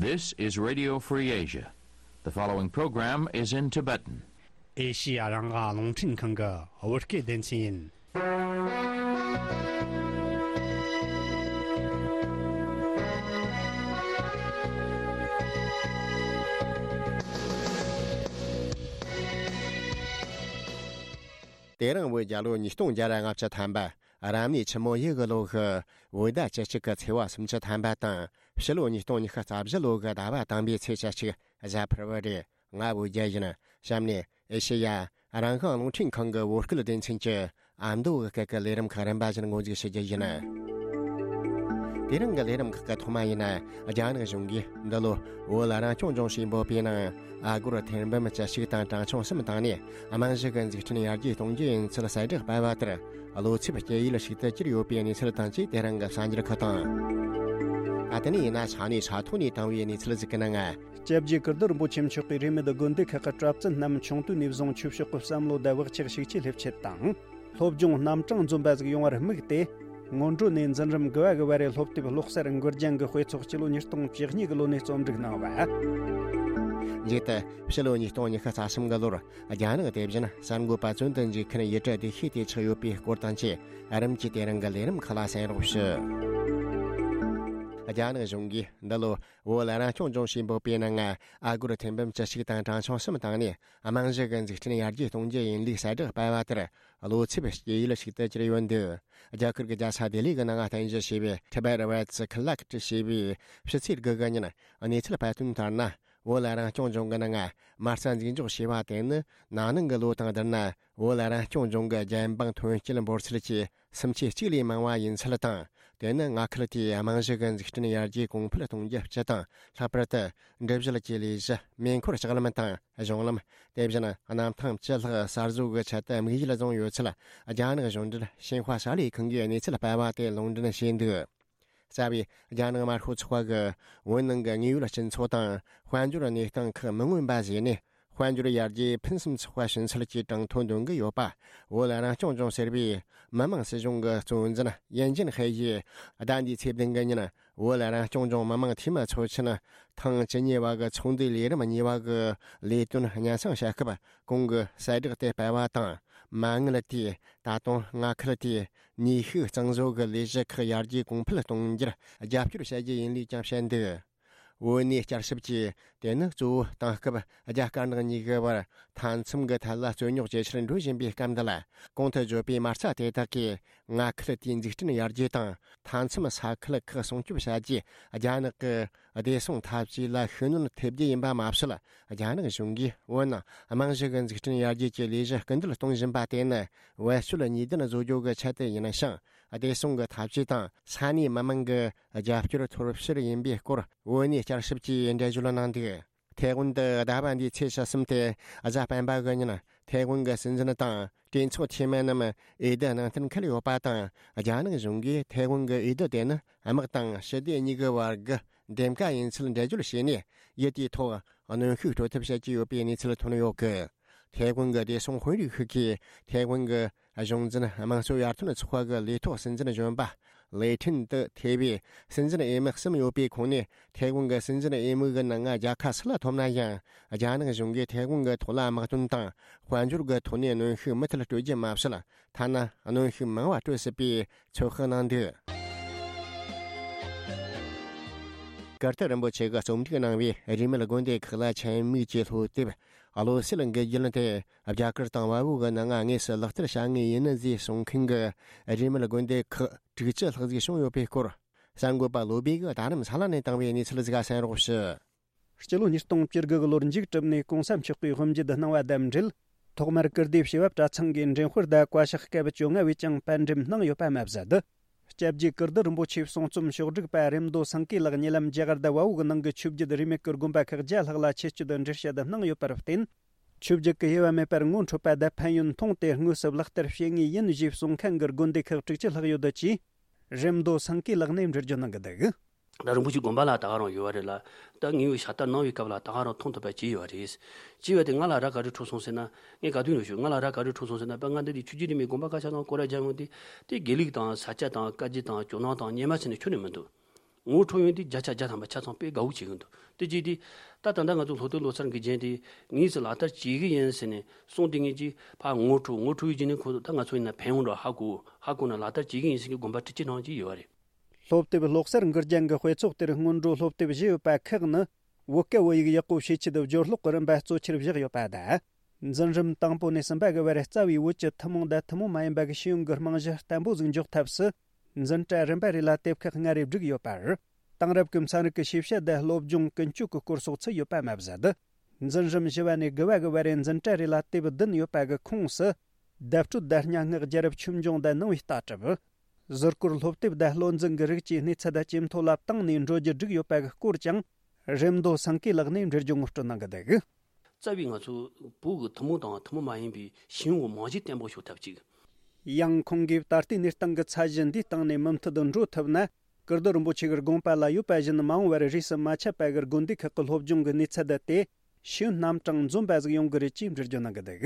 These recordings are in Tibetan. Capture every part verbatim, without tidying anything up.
This is Radio Free Asia. The following program is in Tibetan. ཨེ་ཤི་ཡ་རང་དབང་རླུང་འཕྲིན་ཁང་གི་བོད་སྐད་སྡེ་ཚན་ཡིན། དེ་རིང་བོད་རྒྱལ་ལོ་ཉིས་སྟོང་བརྒྱ་ར་ལྔ་བཅུ་ཐམ་པ། རབ་གནས་ཆུ་མོ་ཡོས་གི་ལོ་གི་བོད་ཟླ་བཅུ་གཅིག་གི་ཚེས་པ་སུམ་ཅུ་ཐམ་པ་དང་། ཕྱི་ལོ་ཉིས་སྟོང་ཉི་ཤུ་རྩ་བཞི་ལོ་གི་ཟླ་བ་དང་པའི་ཚེས་བཅུ་གཅིག་གཟའ་ཕུར་བུ་རེད། ང་བོད་རྒྱལ་ཡིན། གཤམ་ནས་ཨེ་ཤེ་ཡ་རང་དབང་རླུང་འཕྲིན་ཁང་གི་བོད་སྐད་སྡེ་ཚན་གྱི་ཨ་མདོ་གི་སྐད་ཀྱི་ལས་རིམ་ཁག་རིམ་པ་བཞིན་ངོ་མཇུག་ཞུ་རྒྱུ་ཡིན། དེ་རིང་གི་ལས་རིམ་ཁག་གི་ཐོག་མ་ཡིན་ན། རྒྱ་ནག་གཞུང་གིས་འདི་ལོ་བོད་རང་སྐྱོང་ལྗོངས་ཞེས་འབོད་པའི་ནང་། ཨ་སྒོར་ཐེར་འབུམ་བཅུ་གཅིག་དང་གྲངས་ཆུང་གསུམ་བཏང་ནས། རྨང་གཞི་གི་འཛུགས་སྐྲུན་ཡར་རྒྱས་གཏོང་རྒྱུ་ཡིན་ཚུལ་གསལ་བསྒྲགས་སྤེལ་བ་ལྟར། བློ་འཚབ་སྐྱེ་ཡུལ་ཞིག་ཏུ་གྱུར་ཡོད་པའི་གནས་ཚུལ་དང་བཅས། དེ་རིང་གི་གསར་འགྱུར་ཁག་དང་། ད་ལྟ་ནས་ཡིན་ན་ས་གནས་ས་ཐོག་ནས་བཏང་བའི་གནས་ཚུལ་ཞིག་གི་ནང་། སྐྱབས་རྗེ་ཀིརྟི་རིན་པོ་ཆེ་མཆོག་གིས་རིས་མེད་དགོན་སྡེ་ཁག་གི་གྲྭ་བཙུན་རྣམས་ཆུང་དུས་ནས་བཟུང་ཆོས་ཕྱོགས་ཀྱི་བསམ་བློ་དང་བག་ཆགས་ཤུགས་ཆེ་སླེབས་ཆེད་དང་། སློབ་སྦྱོང་རྣམ་གྲངས་འཛོམས་པ་ཟིག་ཡོང་བར་དམིགས་ཏེ། སྔོན་འགྲོ་ནས་འཛིན་རིམ་དགུ་བ་གི་བར་རེ་སློབ་དེབ་ཀློག་གསར་འགོད་རྒྱང་གི་དཔེ་ཚོགས་སྤྱི་ལོ་ཉིས་སྟོང་བཅུ་གཉིས་གི་ལོ་ནས་རྩོམ་སྒྲིག་གནང་བ། མཇུག་ཏུ་ཕྱི་ལོ་ཉིས་སྟོང་ཉི་ཤུ་རྩ་གསུམ་གི་ལོར་རྒྱ་ནག་དེ་བཞིན་གསར་འགོད་པ་བཙོན་དུ་འཇུག་མཁན་ཡུལ་གྲུ་བདེ་ཤོས་དེ་ཆགས་ཡོད་པའི་སྐོར་དང་བཅས། རིམ་གྱིས་དེ་རིང་གི་ལས་རིམ་ཁག་ལ་གསན་རོགས་ཞུ། རྒྱ་ནག་གཞུང་གིས་འདི་ལོ་བོད་རང་སྐྱོང་ལྗོངས་ཞེས་འབོད་པའི་ནང་། ཨ་སྒོར་ཐེར་འབུམ་བཅུ་གཅིག་དང་གྲངས་ཆུང་གསུམ་བཏང་ནས། རྨང་གཞི་གི་འཛུགས་སྐྲུན་ཡར་རྒྱས་གཏོང་རྒྱུ་ཡིན་ལུགས་གསལ་བསྒྲགས་སྤེལ་བ་ལྟར། བློ་འཚབ་སྐྱེ་ཡུལ་ཞིག་ཏུ་གྱུར་ཡོད་འདུག། རྒྱ་གར་གྱི་རྒྱལ་ས་ལྡི་ལི་གི་ནང་རྟེན་གཞི་བྱས་པའི་Tibet Rights Collect ཞེས་པའི་ཕྱི་ཚེས་དགུ་གི་ཉིན་གནས་ཚུལ་སྤེལ་དོན་ལྟར་ན། བོད་རང་སྐྱོང་ལྗོངས་ཀྱི་ནང་མ་རྩ་འཛུགས་འཇོག་བྱས་པ་དེ་ནི། ན་ནིང་གི་ལོ་དང་བསྡུར་ན། བོད་རང་སྐྱོང་ལྗོངས་ཀྱི་རྒྱལ་འབངས་ཐོན་སྐྱེད་འབོར་ཚད་ཀྱི་སུམ་ཆའི་གཅིག་ལས་མང་བ་ཡིན་ཚུལ་དང་། དེ་ནི་མངའ་ཁུལ་དེའི་རྨང་གཞི་གི་འཛུགས་སྐྲུན་ཡར་རྒྱས་གོང་འཕེལ་གཏོང་རྒྱུ་སྤྱི་དང་། ལྷག་པར་དུ་འབྲུ་བཞི་གི་ལས་གཞི། མེ་འཁོར་ལྕགས་ལམ་དང་གཞུང་ལམ། དེ་བཞིན་གནམ་ཐང་བཅུ་ལྷག་གསར་བཟོ་གི་ཆེད་དུ་དམིགས་ཡུལ་བཟུང་ཡོད་ཚུལ། རྒྱ་ནག་གཞུང་འབྲེལ་ཤིན་ཧྭ་གསར་ལས་ཁང་གིས་གནས་ཚུལ་སྤེལ་བ་དེ་ལུང་འདྲེན་བྱས་འདུག། རྩ་བའི་རྒྱ་ནག་དམར་ཤོག་ཚོགས་པ་གིས་བོད་ནང་གི་དངོས་ཡོད་སྤྱི་ཚོགས་དང་། དཔལ་འབྱོར་གནས་སྟངས་ཁག་མི་མངོན་པ་བཟོས་ནས། དཔལ་འབྱོར་ཡར་རྒྱས་ཕུན་སུམ་ཚོགས་པ་བྱིན་ཚུལ་གྱི་གྲངས་ཐོ་འདོན་གྱི་ཡོད་པ། བོད་རང་སྐྱོང་ལྗོངས་ཟེར་བའི་མི་དམངས་སྲིད་གཞུང་གི་གཙོ་འཛིན་ཡན་ཅིན་ཧའེ་ཡིས་ཟླ་འདིའི་ཚེས་བདུན་གྱི་ཉིན། བོད་རང་སྐྱོང་ལྗོངས་མི་དམངས་འཐུས་མི་ཚོགས་ཆེན་ཐེངས་བཅུ་གཉིས་པ་གི་ཚོགས་འདུའི་ལས་རིམ་གཉིས་པ་གི་ལས་དོན་སྙན་སེང་བྱ་སྐབས། གོང་གི་གསལ་བསྒྲགས་དེ་སྤེལ་བ་དང་། མ་དངུལ་དེས་ད་དུང་མངའ་ཁུལ་དེའི་ནུས་ཤུགས་གཙང་བཟོ་གི་ལས་གཞི་ཁག་ཡར་རྒྱས་གོང་འཕེལ་གཏོང་རྒྱུར་རྒྱབ་སྐྱོར་བྱ་རྒྱུ་ཡིན་ལུགས་ཀྱང་བཤད་འདུག། བོད་གནས་བསྐྱར་ཞིབ་ཀྱིས་དེ་ནི་གཙོ་བོ་དེང་སྐབས་རྒྱ་དཀར་ནག་གཉིས་ཀྱི་བར་མཐའ་མཚམས་ཀྱི་ཐད་ལ་རྩོད་རྙོག་ཇེ་ཆེར་འགྲོ་བཞིན་པའི་སྐབས་འདི་ལ། གོང་དུ་བརྗོད་པའི་མ་རྩ་དེ་དག་གིས་མངའ་ཁུལ་དེའི་འཛུགས་སྐྲུན་ཡར་རྒྱས་དང་། མཐའ་མཚམས་ས་ཁུལ་ཁག་སྲུང་སྐྱོབ་བྱ་རྒྱུའི་རྒྱ་ནག་གི་བདེ་སྲུང་འཐབ་ཇུས་ལ་ཤུགས་སྣོན་ཐེབས་རྒྱུ་ཡིན་པ་མ་ཟད། རྒྱ་ནག་གཞུང་གིས་བོད་ནང་རྨང་གཞི་གི་འཛུགས་སྐྲུན་ཡར་རྒྱས་ཀྱི་ལས་གཞི་སྐུལ་འདེད་གཏོང་བཞིན་པ་དེ་ནི། བེད་སྤྱོད་ནུས་ལྡན་བཟོ་རྒྱུ་གི་ཆེད་དུ་ཡིན་ཞིང་། བདེ་སྲུང་གི་འཐབ་ཇུས་དང་ས་གནས་མི་དམངས་ཀྱི་རྒྱབ་སྐྱོར་ཐོབ་ཕྱིར་ཡིན་པའི་སྐོར། བོད་གནས་བསྐྱར་ཞིབ་ཀྱིས་འགྲེལ་བརྗོད་གནང་འདུག། ཐའེ་ཝན་དུ་ཟླ་བ་འདིའི་ཚེས་བཅུ་གསུམ་སྟེ་གཟའ་སྤེན་པ་གི་ཉིན། ཐའེ་ཝན་གྱི་སྲིད་འཛིན་དང་གྲོས་ཚོགས་འཐུས་མི་རྣམས་འོས་བསྡུ་གནང་གཏན་འཁེལ་ཡོད་པ་དང་། རྒྱ་ནག་གཞུང་གིས་ཐའེ་ཝན་གྱི་འོས་བསྡུ་དེ་ནི་དམག་དང་ཞི་བདེ་གཉིས་ཀྱི་བར་གྱི་འདེམས་ཀ་ཡིན་ཚུལ་འགྲེལ་བརྗོད་བྱས་ནས། ཡུལ་དེའི་ཐོག་གནོན་ཤུགས་སྤྲོད་ཐབས་བྱེད་ཀྱི་ཡོད་པའི་གནས་ཚུལ་ཐོན་ཡོད་གི། ཐའེ་ཝན་གྱི་བདེ་སྲུང་དཔོན་རིགས་ཤིག་གིས་ཐའེ་ཝན་གྱི་གཞུང་འཛིན་དམངས་གཙོ་ཡར་ཐོན་ཚོགས་པ་གི་ལས་ཐོག་སྲིད་འཛིན་གཞོན་པ་ལེ་ཁྲིན་ཏུ་ཐེ་བའི་སྲིད་འཛིན་འོས་མི་གསུམ་ཡོད་པའི་ཁོངས་ནས། ཐའེ་ཝན་གྱི་སྲིད་འཛིན་འོས་མི་གི་ནང་རྒྱལ་ཁ་སུ་ལ་ཐོབ་ན་ཡང་། རྒྱ་ནག་གཞུང་གིས་ཐའེ་ཝན་གྱི་ཐོག་ལ་དམག་དོན་དང་དཔལ་འབྱོར་གྱི་ཐོག་ནས་གནོན་ཤུགས་མུ་མཐུད་སྤྲོད་རྒྱུ་མ་ཟད། ཐ་ན་གནོན་ཤུགས་མང་བ་སྤྲོད་སྲིད་པའི་ཚོད་དཔག་གནང་འདུག། ཀིརྟི་རིན་པོ་ཆེ་གིས་རྩོམ་སྒྲིག་གནང་བའི་རིས་མེད་དགོན་སྡེ་ཁག་ལ་ཆེད་དམིགས་ཀྱི་སློབ་དེབ། བློ་གསལ་གྱི་རྒྱུན་དེ་རྒྱ་གར་དང་བལ་པོ་གི་ནང་དངོས་སུ་ལག་བསྟར་བྱ་ངེས་ཡིན་ཟེར་གསུང་མཁན་གྱི་རིས་མེད་དགོན་སྡེ་ཁག་དྲུག་ཅུ་ལྷག་ཟིག་བྱུང་ཡོད་པའི་སྐོར། གསར་འགོད་པ་བློ་བྷེ་གིས་རྡ་རམ་ས་ལ་ནས་བཏང་བའི་གནས་ཚུལ་ཟིག་གསན་རོགས་ཞུ། སྤྱི་ལོ་ཉིས་སྟོང་བཅུ་དགུ་གི་ལོར་འཇིགས་གྲུབ་ནས་གོང་ས་མཆོག་གི་དབུ་འབྱེད་གནང་བ་དང་འབྲེལ། ཐོག་མར་ཀིརྟིའི་བྱེས་པ་གྲྭ་ཚང་གི་འདྲེན་དཔོན་དང་བཀའ་ཤག་སྐབས་བཅོ་ལྔ་བས་ཀྱང་པར་འགྲེམས་གནང་ཡོད་པ་མ་ཟད། སྐྱབས་རྗེ་ཀིརྟི་རིན་པོ་ཆེའི་གསུང་རྩོམ་ཕྱོགས་སྒྲིག་པ་རེམ་མདོ་སེང་གེ་ལགས་ཉེ་ལམ་རྒྱ་གར་དང་བལ་པོ་གི་ནང་གི་ཆོས་བརྒྱུད་རིས་མེད་ཀྱི་དགོན་པ་ཁག་བརྒྱ་ལྷག་ལ་ཆེད་བསྐྱོད་འགྲེལ་བཤད་གནང་ཡོད་པར་བརྟེན། ཆོས་བརྒྱུད་ཀྱི་དབྱེ་བ་མེད་པར་ངོ་འཕྲོད་པ་དང་ཕན་ཡོན་མཐོང་སྟེ་དངོས་སུ་ལག་བསྟར་བྱེད་ངེས་ཡིན་ཞེས་གསུང་མཁན་གྱི་དགོན་སྡེ་ཁག་དྲུག་ཅུ་ལྷག་ཡོད་འདུག་ཅེས་རེམ་མདོ་སེང་གེ་ལགས་ནས་འགྲེལ་བརྗོད་གནང་གི་འདུག། ད་རིན་པོ་ཆེ་དགོན་པ་ལ་ད་ག་རང་ཡོད་པ་རེད་ལ། ད་ངའི་བའི་ཤ་སྟག་གནང་བའི་སྐབས་ལ་ད་ག་རང་མཐོང་ཐུབ་པ་ཅི་ཡོད་རེད། ཅི་ཡོད་དེ་ང་ལ་ར་ག་རེ་འཁྲུག་སོང་ཟེར་ན། ངས་ག་དུས་ཡོད་ཞུ་ང་ལ་ར་ག་རེ་འཁྲུག་སོང་ཟེར་ན། པ་ང་འདི་དེ་ཆོས་བརྒྱུད་རིས་མེད་དགོན་པ་ཁ་ཤས་ནང་སྐོར་ར་རྒྱག་ཡོང་དུས། དེ་དགེ་ལུགས་དང་ས་སྐྱ་དང་བཀའ་བརྒྱུད་དང་ཇོ་ནང་དང་སྔོན་མ་ཕྱིན་ནས་ཁྱོན་ནས་མི་འདུག། ངོ་འཕྲོད་ཡོང་དུས་བརྒྱ་ཆ་བརྒྱ་ཐམ་པ་ཆ་ཚང་དཔེ་དགའ་བོ་བྱེད་ཀྱི་འདུག་དེ་བྱས་དུས་ད་ད་ལྟ་ང་ཚོ་སློབ་དེབ་ཀློག་འཆར་འགོད་མཁན་དེ་དངོས་སུ་ལག་བསྟར་བྱེད་ཀྱི་ཡིན་ཟེར་ནས་གསུངས་དུས་ངེད་ཀྱིས་ཕར་ངོ་འཕྲོད་ངོ་འཕྲོད་ཡོད་ཀྱི་ནི་ཁོ་ཚོ་ད་ང་ཚོ་ཡིན་ན་ཕན་ཡོང་འགྲོ་ཧ་གོ་ཧ་གོ་ན་ལག་བསྟར་བྱེད་ཀྱི་ཡིན་ཟེར་གྱི་དགོངས་པ་དྲན་གྱི་གནང་གི་ཡོད་རེད། སློབ་དེབ་ཀློག་གསར་འགོད་རྒྱན་གྱི་དཔེ་ཚོགས་དེར་སྔོན་འགྲོ་སློབ་དེབ་བཞི་ཡོད་པ་ཁག་ནི། བོད་སྐད་བོད་ཡིག་ཡག་པོ་ཤེས་ཆེད་སྦྱོར་ཀློག་གི་རིམ་པ་གཙོ་ཆེར་བཞག་ཡོད་པ་དང་། འཛིན་རིམ་དང་པོ་ནས་གསུམ་པ་གི་བར་རྩ་བའི་བོད་ཀྱི་ཐུན་མོང་དང་ཐུན་མོང་མ་ཡིན་པ་གི་ཤེས་ཡོན་གྱི་རྨང་གཞི་བརྟན་པོ་ཟིག་འཇོག་ཐབས་སུ། འཛིན་གྲྭ་རིམ་པ་རེ་ལ་དེབ་ཁག་ལྔ་རེ་བསྒྲིགས་ཡོད་པར། དེང་རབས་ཀྱི་ཚན་རིག་གི་ཤེས་བྱ་དང་སློབ་སྦྱོང་ཀུན་སྤྱོད་ཀྱི་སྐོར་སོགས་ཚུད་ཡོད་པ་མ་ཟད། འཛིན་རིམ་བཞི་བ་ནས་དགུ་བ་གི་བར་རེ་འཛིན་གྲྭ་རེ་ལ་དེབ་བདུན་ཡོད་པ་གི་ཁོངས་སུ། བརྡ་སྤྲོད་དང་སྙན་ངག་རྒྱལ་རབས་ཆོས་འབྱུང་དང་ནང་པའི་ལྟ་གྲུབ། ཟུར་བཀོལ་སློབ་དེབ་དང་བློ་འཛིན་གྱི་རིགས་ཀྱི་གནས་ཚད་ཇེ་མཐོ་ལ་བཏང་ནས་འགྲོ་རྒྱུ་བསྒྲིགས་ཡོད་པ་གི་སྐོར་ཀྱང་། རེམ་མདོ་སེང་གེ་ལགས་ནས་འགྲེལ་བརྗོད་ངོ་སྤྲོད་གནང་གི་འདུག་རྩ་བའི་ང་ཚོ་བོད་ཀྱི་ཐུན་མོང་དང་ཐུན་མོང་མ་ཡིན་པའི་ཤེས་ཡོན་གྱི་རྨང་གཞི་བརྟན་པོ་ཤོག་ཐབས་ཅིག་ཡང་ཁོང་གིས་ད་ལྟའི་གནས་སྟངས་ཀྱི་ཚད་གཞི་འདིའི་སྟེང་ནས་མུ་མཐུད་དུ་འགྲོ་ཐུབ་ན། ཀིར་སྡོད་རིན་པོ་ཆེ་གི་དགོངས་པ་ལ་ཡོད་པ་བཞིན་མ་འོངས་པར་རིས་སུ་མ་ཆད་པ་གི་དགོན་སྡེ་ཁག་གི་སློབ་སྦྱོང་གི་གནས་ཚད་དེ་ཤེས་ཡོན་རྣམ་གྲངས་འཛོམས་པ་ཟིག་ཡོང་གི་རེད་ཅེས་འགྲེལ་བརྗོད་གནང་གི་འདུག་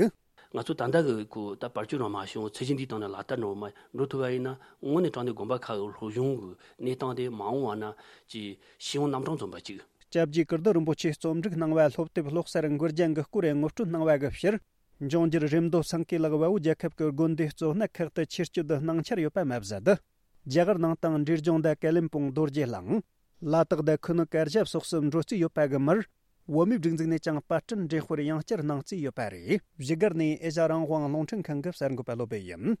ང་ཚོ་ད་ལྟ་གི་གོ་ད་བར་ཆད་རང་མ་བྱུང་ཚད་གཞི་འདིའི་སྟེང་ནས་ལག་བསྟར་འགྲོ་མ་འགྲོ་ཐུབ་པ་ཡིན་ན་དངོས་གནས་དྲང་གནས་དགོན་པ་ཁག་གི་སློབ་སྦྱོང་གི་གནས་སྟངས་དེ་མ་འོངས་པ་ན་ཅིག་ཤེས་ཡོན་རྣམ་གྲངས་འཛོམས་པ་ཅིག་སྐྱབས་རྗེ་ཀིར་སྡོད་རིན་པོ་ཆེས་རྩོམ་སྒྲིག་གནང་བའི་སློབ་དེབ་ཀློག་གསར་འགོད་རྒྱན་གྱི་སྐོར་ངོ་སྤྲོད་གནང་བ་གི་ཕྱིར། འབྱུང་འགྱུར་རེམ་མདོ་སེང་གེ་ལགས་བལ་པོ་རྒྱལ་ཁབ་ཀྱི་དགོན་སྡེ་གཙོ་གནད་ཁག་ཏུ་ཆེད་སྐྱོད་དུ་གནང་འཆར་ཡོད་པ་མ་ཟད། རྒྱ་གར་ནང་དང་འབྲས་ལྗོངས་དང་ཀ་ལིམ་པོང་རྡོ་རྗེ་གླིང་། ལ་དྭགས་དང་ཁུ་ནུ་དཀར་ཞབས་སོགས་སུ་འགྲོ་རྩིས་ཡོད་པ་གི་མར། བོད་མིའི་སྒྲིག་འཛུགས་ནས་ཀྱང་པར་སྐྲུན་འགྲེམས་སྤེལ་ཡང་བསྐྱར་གནང་རྩིས་ཡོད་པ་རེད། བཞུགས་སྒར་ནས་ཨེ་ཤ་རང་དབང་རླུང་འཕྲིན་ཁང་གི་གསར་འགོད་པ་བློ་བྷེ་ཡིན།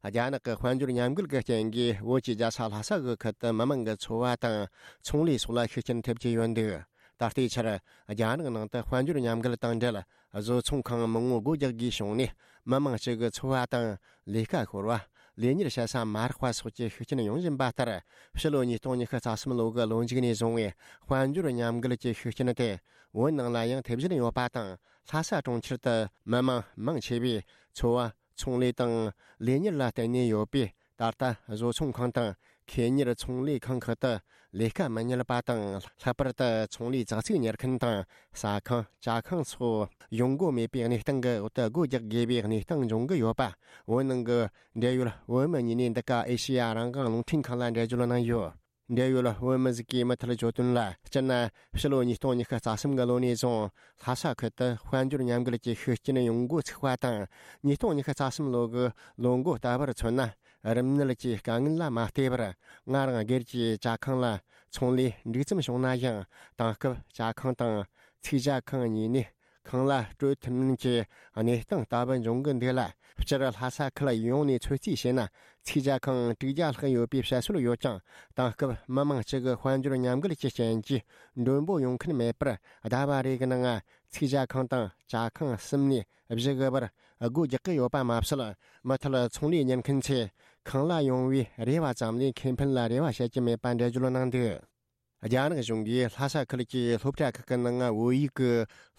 རྒྱ་ནག་གི་དཔལ་འབྱོར་ཉམས་རྒུད་ཀྱི་རྐྱེན་གྱིས་བོད་ཀྱི་རྒྱལ་ས་ལྷ་ས་གི་ཁུལ་དུ་མི་མང་གི་འཚོ་བ་དང་ཚོང་ལས་སོགས་ལ་ཤུགས་རྐྱེན་ཐེབས་ཀྱི་ཡོད་འདུག་ད་ལྟའི་ཆར་རྒྱ་ནག་ནང་དུ་དཔལ་འབྱོར་ཉམས་རྒུད་དང་འབྲེལ་བཟོ་ཚོང་ཁང་མང་པོ་སྒོ་རྒྱག་དགོས་བྱུང་ནས་མི་མང་གཅིག་གི་འཚོ་བ་དང་ལས་ཀ་ཤོར་བ། ལས་གཉེར་བྱེད་ས་མ་རག་པ་སོགས་ཀྱི་ཤུགས་རྐྱེན་ཡོང་བཞིན་པ་ལྟར། ཕྱི་ལོ་ཉིས་སྟོང་ཉི་ཤུ་རྩ་གསུམ་ལོ་གི་ལོ་མཇུག་ནས་བཟུང་བའི་དཔལ་འབྱོར་ཉམས་རྒུད་ཀྱི་ཤུགས་རྐྱེན་དེ་བོད་ནང་ལ་ཡང་ཐེབས་བཞིན་ཡོད་པ་དང་། ལྷ་ས་གྲོང་ཁྱེར་དུ་མི་མང་མང་ཆེ་བས་འཚོ་བ་ཚོང་ལས་དང་ལས་གཉེར་ལ་བརྟེན་ནས་ཡོད་པས། ད་ལྟ་བཟོ་ཚོང་ཁང་དང་ཁེ་གཉེར་ཚོང་ལས་ཁང་ཁག་ཏུ་ལས་ཀ་མི་རྙེད་པ་དང་། ལྷག་པར་དུ་ཚོང་ལས་ཙག་ཙིག་གཉེར་མཁན་དང་ཟ་ཁང་ཇ་ཁང་སོགས་ཡོང་སྒོ་མེད་པའི་གནས་སྟངས་ཀྱི་འོག་ཏུ་སྒོ་རྒྱག་དགོས་པའི་གནས་སྟངས་འབྱུང་གི་ཡོད་པ། བོད་ནང་གི་འབྲེལ་ཡོད་བོད་མི་གཉིས་ནས་འདི་ག་ཨེ་ཤེ་ཡ་རང་དབང་རླུང་འཕྲིན་ཁང་ལ་འགྲེལ་བརྗོད་གནང་ཡོད། འབྲེལ་ཡོད་བོད་མི་ཟིག་གིས་མུ་མཐུད་བརྗོད་དོན་ལ། སྤྱིར་ན་ཕྱི་ལོ་ཉིས་སྟོང་ཉི་ཤུ་རྩ་གསུམ་གི་ལོ་ནས་བཟུང་ལྷ་ས་ཁུལ་དུ་དཔལ་འབྱོར་ཉམས་རྒུད་ཀྱི་ཤུགས་རྐྱེན་ཡོང་འགོ་ཚུགས་པ་དང་། ཉིས་སྟོང་ཉི་ཤུ་རྩ་གསུམ་ལོ་གི་ལོ་འགོ་ལྟ་བུར་མཚོན་ན། རིམས་ནད་ཀྱི་དཀའ་ངལ་ལ་མ་བལྟས་པར། སྔར་སྒེར་གྱི་ཇ་ཁང་ལ་ཚོང་ལས་འགྲིག་ཙམ་བྱུང་ན་ཡང་། དེང་སྐབས་ཇ་ཁང་དང་ཚིག་ཇ་ཁང་གཉིས་ནས། ཁང་གླ་སྤྲོད་ཐུབ་མིན་གྱི་གནས་སྟངས་ལྟ་བུ་འབྱུང་གི་འདུག་ལ། སྤྱིར་ལྷ་ས་ཁུལ་ཡོངས་ནས་ཚོད་རྩིས་བྱས་ན། ཚིག་ཇ་ཁང་དྲུག་བརྒྱ་ལྷག་ཡོད་པའི་བཤད་སྲོལ་ཡོད་ཀྱང་། དེང་སྐབས་མི་མང་གཅིག་གི་དཔལ་འབྱོར་ཉམས་རྒུད་ཀྱི་རྐྱེན་གྱིས་མགྲོན་པོ་ཡོང་མཁན་མེད་པར། ཟླ་བ་རེ་གི་ནང་ཚིག་ཇ་ཁང་དང་ཇ་ཁང་གསུམ་ནས་བཞི་གི་བར་སྒོ་རྒྱག་གི་ཡོད་པ་མ་ཟད། མུ་མཐུད་ཚོང་ལས་གཉེར་མཁན་ཚོས་ཁང་གླ་ཡོང་བའི་རེ་བ་ཙམ་ལས་ཁེ་ཕན་ལ་རེ་བ་བྱེད་ཀྱི་མེད་པ་འགྲེལ་བརྗོད་གནང་འདུག་རྒྱ་ནག་གཞུང་གིས་ལྷ་ས་ཁུལ་གྱི་སློབ་གྲྭ་ཁག་གི་ནང་བོད་ཡིག་གི་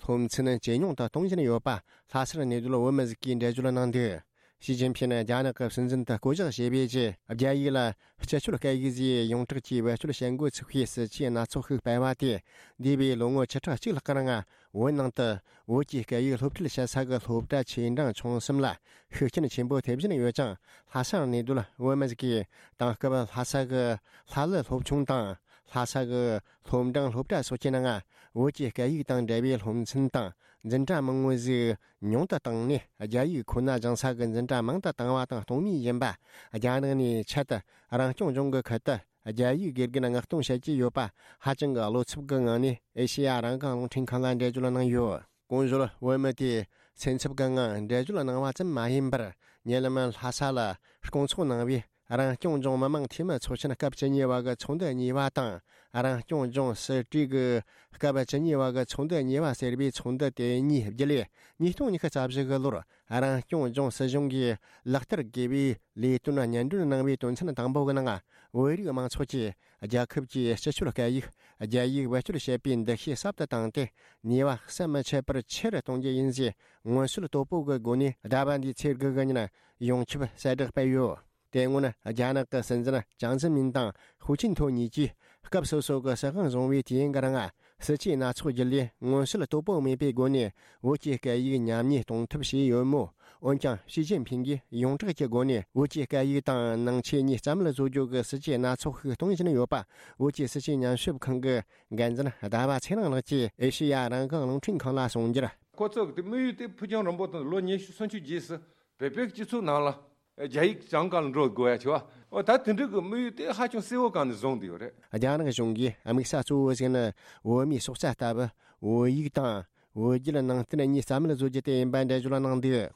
སློབ་ཚན་ཇེ་ཉུང་དུ་གཏོང་བཞིན་ཡོད་པ། ལྷ་སར་གནས་སྡོད་བོད་མི་ཟིག་གིས་འགྲེལ་བརྗོད་གནང་དོན། ཞི་ཅིན་ཕིན་རྒྱ་ནག་གི་སྲིད་འཛིན་དུ་བསྐོ་གཞག་བྱས་པའི་རྗེས། རྒྱ་ཡིག་ལ་སྤྱི་སྤྱོད་སྐད་ཡིག་ཟེར་ཡོངས་གྲགས་ཀྱིས་བེད་སྤྱོད་བྱེད་འགོ་ཚུགས་པའི་སྲིད་ཇུས་སྣ་ཚོགས་ཤིག་སྤེལ་བ་དེས། འདས་པའི་ལོ་ངོ་བཅུ་ཕྲག་གཅིག་ལྷག་གི་རིང་། བོད་ནང་དུ་བོད་ཀྱི་སྐད་ཡིག་སློབ་ཁྲིད་བྱེད་ས་གི་སློབ་གྲྭ་ཆེ་འབྲིང་ཆུང་གསུམ་ལ་ཤུགས་རྐྱེན་ཆེན་པོ་ཐེབས་བཞིན་ཡོད་ཅིང་། ལྷ་སར་གནས་སྡོད་བོད་མི་ཟིག་གིས་དེང་སྐབས་ལྷ་ས་གི་ལྷ་གླུ་སློབ་ཆུང་དང་། ལྷ་ས་གི་སློབ་འབྲིང་སློབ་གྲྭ་སོགས་ཀྱི་ནང་བོད་ཀྱི་སྐད་ཡིག་དང་འབྲེལ་བའི་སློབ་ཚན་དང་འཛིན་གྲྭ་མང་བོ་ཟིག་ཉུང་དུ་བཏང་ནས། རྒྱ་ཡིག་ཁོ་ན་སྦྱང་ས་གི་འཛིན་གྲྭ་མང་དུ་བཏང་བ་དང་གཏོང་མུས་ཡིན་པ། རྒྱ་ནག་ནས་ཆེད་དུ་རང་སྐྱོང་ལྗོངས་ཀྱི་ཁུལ་དུ་རྒྱ་ཡིག་དགེ་རྒན་མངགས་གཏོང་བྱེད་ཀྱི་ཡོད་པ། ཧ་ཅང་གི་བློ་འཚབ་ཀྱི་ངང་ནས་ཨེ་ཤེ་ཡ་རང་དབང་རླུང་འཕྲིན་ཁང་ལ་འགྲེལ་བརྗོད་གནང་ཡོད། གོང་ཞུས་བོད་མི་དེས་སེམས་འཚབ་ཀྱི་ངང་འགྲེལ་བརྗོད་གནང་བ་ཙམ་མ་ཡིན་པར། ཉེ་ལམ་ལྷ་ས་ལ་སྐོང་ཚོགས་གནང་བའི་རང་སྐྱོང་ལྗོངས་མི་དམངས་འཐུས་མི་ཚོགས་ཆེན་སྐབས་བཅུ་གཉིས་པ་གི་ཚོགས་འདུ་གཉིས་པ་དང་། རང་སྐྱོང་ལྗོངས་སྲིད་གྲོས་ཀྱི་སྐབས་བཅུ་གཉིས་པ་གི་ཚོགས་འདུ་གཉིས་པ་ཟེར་བའི་ཚོགས་འདུ་དེ་གཉིས་བརྒྱུད་ལས། ཉིས་སྟོང་ཉི་ཤུ་རྩ་བཞི་གི་ལོར་རང་སྐྱོང་ལྗོངས་སྲིད་གཞུང་གིས་ལག་བསྟར་དགོས་པའི་ལས་དོན་སྙན་སྒྲོན་གནང་བའི་དོན་ཚན་དང་པོ་གི་ནང་། བོད་རིགས་མང་ཚོགས་ཀྱིས་རྒྱལ་ཁབ་ཀྱི་སྤྱི་སྤྱོད་སྐད་ཡིག་རྒྱ་ཡིག་བེད་སྤྱོད་བྱེད་པའི་འདུ་ཤེས་ཟབ་ཏུ་བཏང་སྟེ། ནུས་པ་ཟམ་མི་ཆད་པར་ཆེ་རུ་གཏོང་རྒྱུ་ཡིན་ཞེས་མངོན་གསལ་དོད་པོ་གི་སྒོ་ནས་ཟླ་བ་འདིའི་ཚེས་དགུ་གི་ཉིན་ཡོངས་ཁྱབ་གསལ་བསྒྲགས་སྤེལ་ཡོད། དེ་སྔོན་རྒྱ་ནག་གི་སྲིད་འཛིན་ཅང་ཙེ་མིན་དང་ཧུའུ་ཅིན་ཐོ་གཉིས་ཀྱིས་སྐབས་སོ་སོ་གི་སྲིད་དབང་བཟུང་བའི་དུས་ཡུན་གྱི་རིང་། སྲིད་ཇུས་སྣ་ཚོགས་བརྒྱུད་ལས་མངོན་གསལ་དོད་པོ་མེད་པའི་སྒོ་ནས་བོད་ཀྱི་སྐད་ཡིག་ཉམས་ཉེས་གཏོང་ཐབས་བྱས་ཡོད་མོད། འོན་ཀྱང་ཞི་ཅིན་ཕིང་གིས་ཡོངས་གྲགས་ཀྱི་སྒོ་ནས་བོད་ཀྱི་སྐད་ཡིག་དང་ནང་ཆོས་གཉིས་རྩ་མེད་བཟོ་རྒྱུ་གི་སྲིད་ཇུས་སྣ་ཚོགས་ཤིག་གཏོང་བཞིན་ཡོད་པ། བོད་ཀྱི་སྲིད་བྱུས་ཉམས་ཞིབ་ཁང་གི་འགན་འཛིན་ཟླ་བ་ཚེ་རིང་ལགས་ཀྱིས་ཨེ་ཤེ་ཡ་རང་དབང་རླུང་འཕྲིན་ཁང་ལ་གསུངས་རྒྱུར། ཁོ་ཚོ་གི་དམིགས་ཡུལ་དེ་ཕུགས་རྒྱང་རིང་པོ་དང་ལོ་ཉི་ཤུ་སུམ་ཅུ་རྗེས་སུ་བོད་པའི་སྤྱི་ཚོགས་ནང་ལ་རྒྱ་ཡིག་སྦྱང་ག་ལ་འགྲོ་དགོས་ཡ་ཆེ་བ། འོ་ད་དེ་འདྲ་གི་དམིགས་ཡུལ་དེ་ཧ་ཅང་གསལ་བོ་གང་ནས་བཟུང་བསྡད་ཡོད་རེད། རྒྱ་ནག་གཞུང་གིས་དམིགས་ས་གཙོ་བོ་ཞིག་ནི་བོད་མིའི་སྲོག་རྩ་ལྟ་བུ་བོད་ཡིག་དང་བོད་བརྒྱུད་ནང་བསྟན་གཉིས་རྩ་མེད་བཟོ་རྒྱུ་དེ་ཡིན་པ་འགྲེལ་བརྗོད་གནང་འདུག།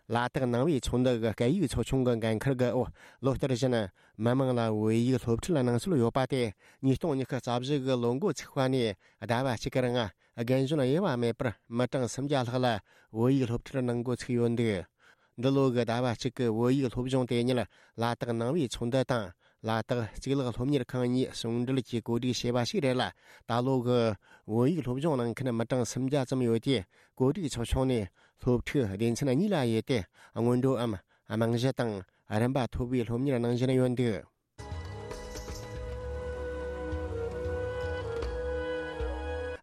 ལ་དྭགས་ནང་པའི་ཚོགས་འདུ་གི་སྐད་ཡིག་ཚོགས་ཆུང་གི་འགན་འཁུར་གྱིས་འོ་ལོ་ལྟར་བཞིན་མི་མང་ལ་བོད་ཡིག་སློབ་ཁྲིད་གནང་སྲོལ་ཡོད་པ་དེ་ཉིས་སྟོང་ཉི་ཤུ་རྩ་བཞི་གི་ལོ་འགོ་ཚུགས་པ་ནས་ཟླ་བ་གཅིག་གི་རིང་རྒན་གཞོན་དབྱེ་བ་མེད་པར་མི་གྲངས་སུམ་བརྒྱ་ལྷག་ལ་བོད་ཡིག་སློབ་ཁྲིད་གནང་འགོ་ཚུགས་ཡོད་འདུག། འདི་ལོ་གི་ཟླ་བ་གཅིག་གི་བོད་ཡིག་སློབ་སྦྱོང་དེ་ཉིད་ལ་དྭགས་ནང་པའི་ཚོགས་འདུ་དང་ལ་དྭགས་གཙུག་ལག་སློབ་གཉེར་ཁང་གཉིས་ཟུང་འབྲེལ་གྱིས་གོ་སྒྲིག་བྱས་པ་ཞིག་རེད་ལ། ད་ལོ་གི་བོད་ཡིག་སློབ་སྦྱོང་གནང་མཁན་མི་གྲངས་སུམ་བརྒྱ་ཙམ་ཡོད་དེ། གོ་སྒྲིག་ཚོགས་ཆུང་ནས་སློབ་ཕྲུག་སྡེ་ཚན་གཉིས་ལ་དབྱེ་སྟེ་སྔོན་འགྲོའམ་རྨང་གཞི་དང་རིམ་པ་མཐོ་བའི་སློབ་གཉེར་གནང་བཞིན་ཡོད་འདུག།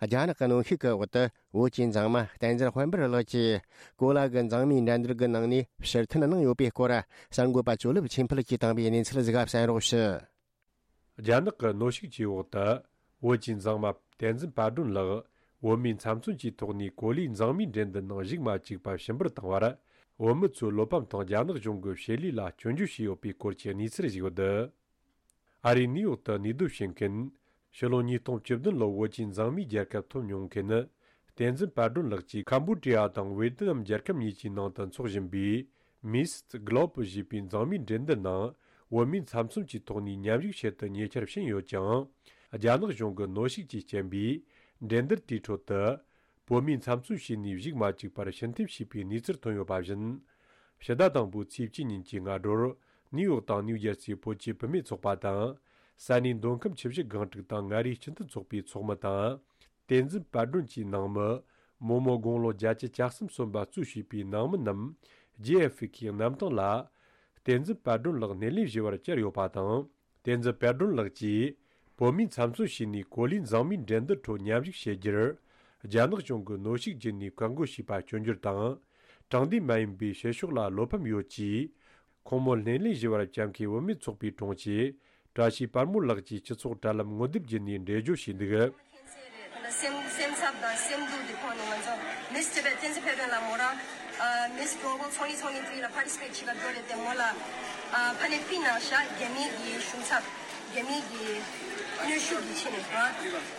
རྒྱ་ནག་གི་གནོན་ཤུགས་ཀྱི་འོག་ཏུ་བོད་ཀྱི་མཛངས་མ་བསྟན་འཛིན་དཔལ་འབར་ལགས་ཀྱིས་གོ་ལ་གི་མཛངས་མའི་འགྲན་བསྡུར་གྱི་ནང་ནས་ཕྱིར་འཐེན་གནང་ཡོད་པའི་སྐོར་གསར་འགོད་པ་ཇོ་ལེབ་ཆོས་འཕེལ་གྱིས་བཏང་བའི་གནས་ཚུལ་ཟིག་ག་གསན་རོགས་ཞུ། རྒྱ་ནག་གི་གནོན་ཤུགས་ཀྱི་འོག་ཏུ་བོད་ཀྱི་མཛངས་མ་བསྟན་འཛིན་དཔལ་སྒྲོན་ལགས་བོད་མིའི་ཚབ་མཚོན་གྱི་ཐོག་ནས་གོ་ལའི་མཛངས་མའི་འགྲན་བསྡུར་ནང་ཞུགས་མ་བཅུག་པར་ཕྱིར་འབུད་བཏང་བར། བོད་མི་ཚོས་བློ་ཕམ་དང་རྒྱ་ནག་གཞུང་གི་བྱེད་ལས་ལ་སྐྱོན་བརྗོད་བྱས་ཡོད་པའི་སྐོར་གྱི་གནས་ཚུལ་ཞིག་ཡོད། ཨ་རིའི་ནིའུ་ཡོག་ཏུ་གནས་སྡོད་བྱེད་མཁན། ཕྱི་ལོ་ཉིས་སྟོང་བཅུ་བདུན་ལོར་བོད་ཀྱི་མཛངས་མའི་རྒྱལ་ཁབ་ཐོབ་མྱོང་མཁན་ནི། བསྟན་འཛིན་དཔལ་སྒྲོན་ལགས་ཀྱིས་ཁམ་བྷོ་ཌི་ཡ་དང་ཝེ་ཏི་ནམ་རྒྱལ་ཁབ་གཉིས་ཀྱི་ནང་དུ་འཚོགས་བཞིན་པའི་Miss Globe ཞེས་པའི་མཛངས་མའི་འགྲན་བསྡུར་ནང་བོད་མིའི་ཚབ་མཚོན་གྱི་ཐོག་ནས་མཉམ་ཞུགས་བྱེད་དུ་ཉེ་ཆར་ཕྱིན་ཡོད་ཀྱང་། རྒྱ་ནག་གཞུང་གི་གནོན་ཤུགས་ཀྱི་རྐྱེན་པས། འགྲན་བསྡུར་དེའི་ཁྲོད་དུ། བོད་མིའི་ཚབ་མཚོན་བྱས་ནས་བཞུགས་མ་བཅུག་པར་ཕྱིར་འཐེན་བྱས་པའི་གནས་ཚུལ་ཐོན་ཡོད་པ་བཞིན། ཕྱི་ཟླ་དང་པོའི་ཚེས་གཅིག་ཉིན་གྱི་སྔ་དྲོར་ནིའུ་ཡོག་དང་ནིའུ་ཇར་སིའི་བོད་ཀྱི་བུད་མེད་ཚོགས་པ་དང་། ས་གནས་མདོ་ཁམས་ཆུ་བཞི་སྒང་དྲུག་དང་མངའ་རིས་སྤྱི་མཐུན་ཚོགས་པའི་ཚོགས་མི་དང་། བསྟན་འཛིན་དཔལ་སྒྲོན་གྱི་ནང་མི། རྨོ་མོ་དགུང་ལོ་བརྒྱད་ཅུ་གྱ་གསུམ་སོན་པ་གཙོས་བྱས་པའི་ནང་མི་རྣམས་ཇེ་ཨེ་ཧྥི་ཁེའི་གནམ་ཐང་ལ། བསྟན་འཛིན་དཔལ་སྒྲོན་ལགས་སྣེ་ལེན་ཞུ་བར་བཅར་ཡོད་པ་དང་། བསྟན་འཛིན་དཔལ་སྒྲོན་ལགས་ཀྱིས་བོད་མིའི་ཚབ་མཚོན་བྱས་ནས་གོ་ལའི་མཛངས་མའི་འགྲན་བསྡུར་ཁྲོད་མཉམ་ཞུགས་བྱེད་རྒྱུར། རྒྱ་ནག་གཞུང་གིས་གནོན་ཤུགས་བརྒྱུད་ནས་བཀག་འགོག་བྱས་པ་སྐྱོན་བརྗོད་དང་། དྲང་བདེན་མ་ཡིན་པའི་བྱེད་ཕྱོགས་ལ་བློ་ཕམ་ཡོད་ཅེས། ཁོང་མོ་སྣེ་ལེན་ཞུ་བར་བཅར་མཁན་བུད་མེད་ཚོགས་པའི་དྲུང་ཆེ། བཀྲ་ཤིས་དཔལ་མོ་ལགས་ཀྱིས་སྤྱི་ཚོགས་དྲ་ལམ་ངོ་དེབ་བརྒྱུད་ནས་འགྲེལ་བརྗོད་བྱས་འདུག། སེམས་སེམས་འཚབ་དང་སེམས་སྡུག་དེ་ཕོག་ནས་ང་ཚོ་Miss Tibet བསྟན་འཛིན་ཕེབས་དོན་ལ་མོ་རང་Miss Global twenty twenty-three ལ་participate བྱེད་ག་འགྲོ་རེད་དེ་མོ་ལ་ཕ་ནས་ཕི་ནང་བཞག་རྒྱ་མི་གི་ཤུགས་འཚབ་རྒྱ་མི་གི་གནོན་ཤུགས་ཀྱི་ཆེད་ནས་ར།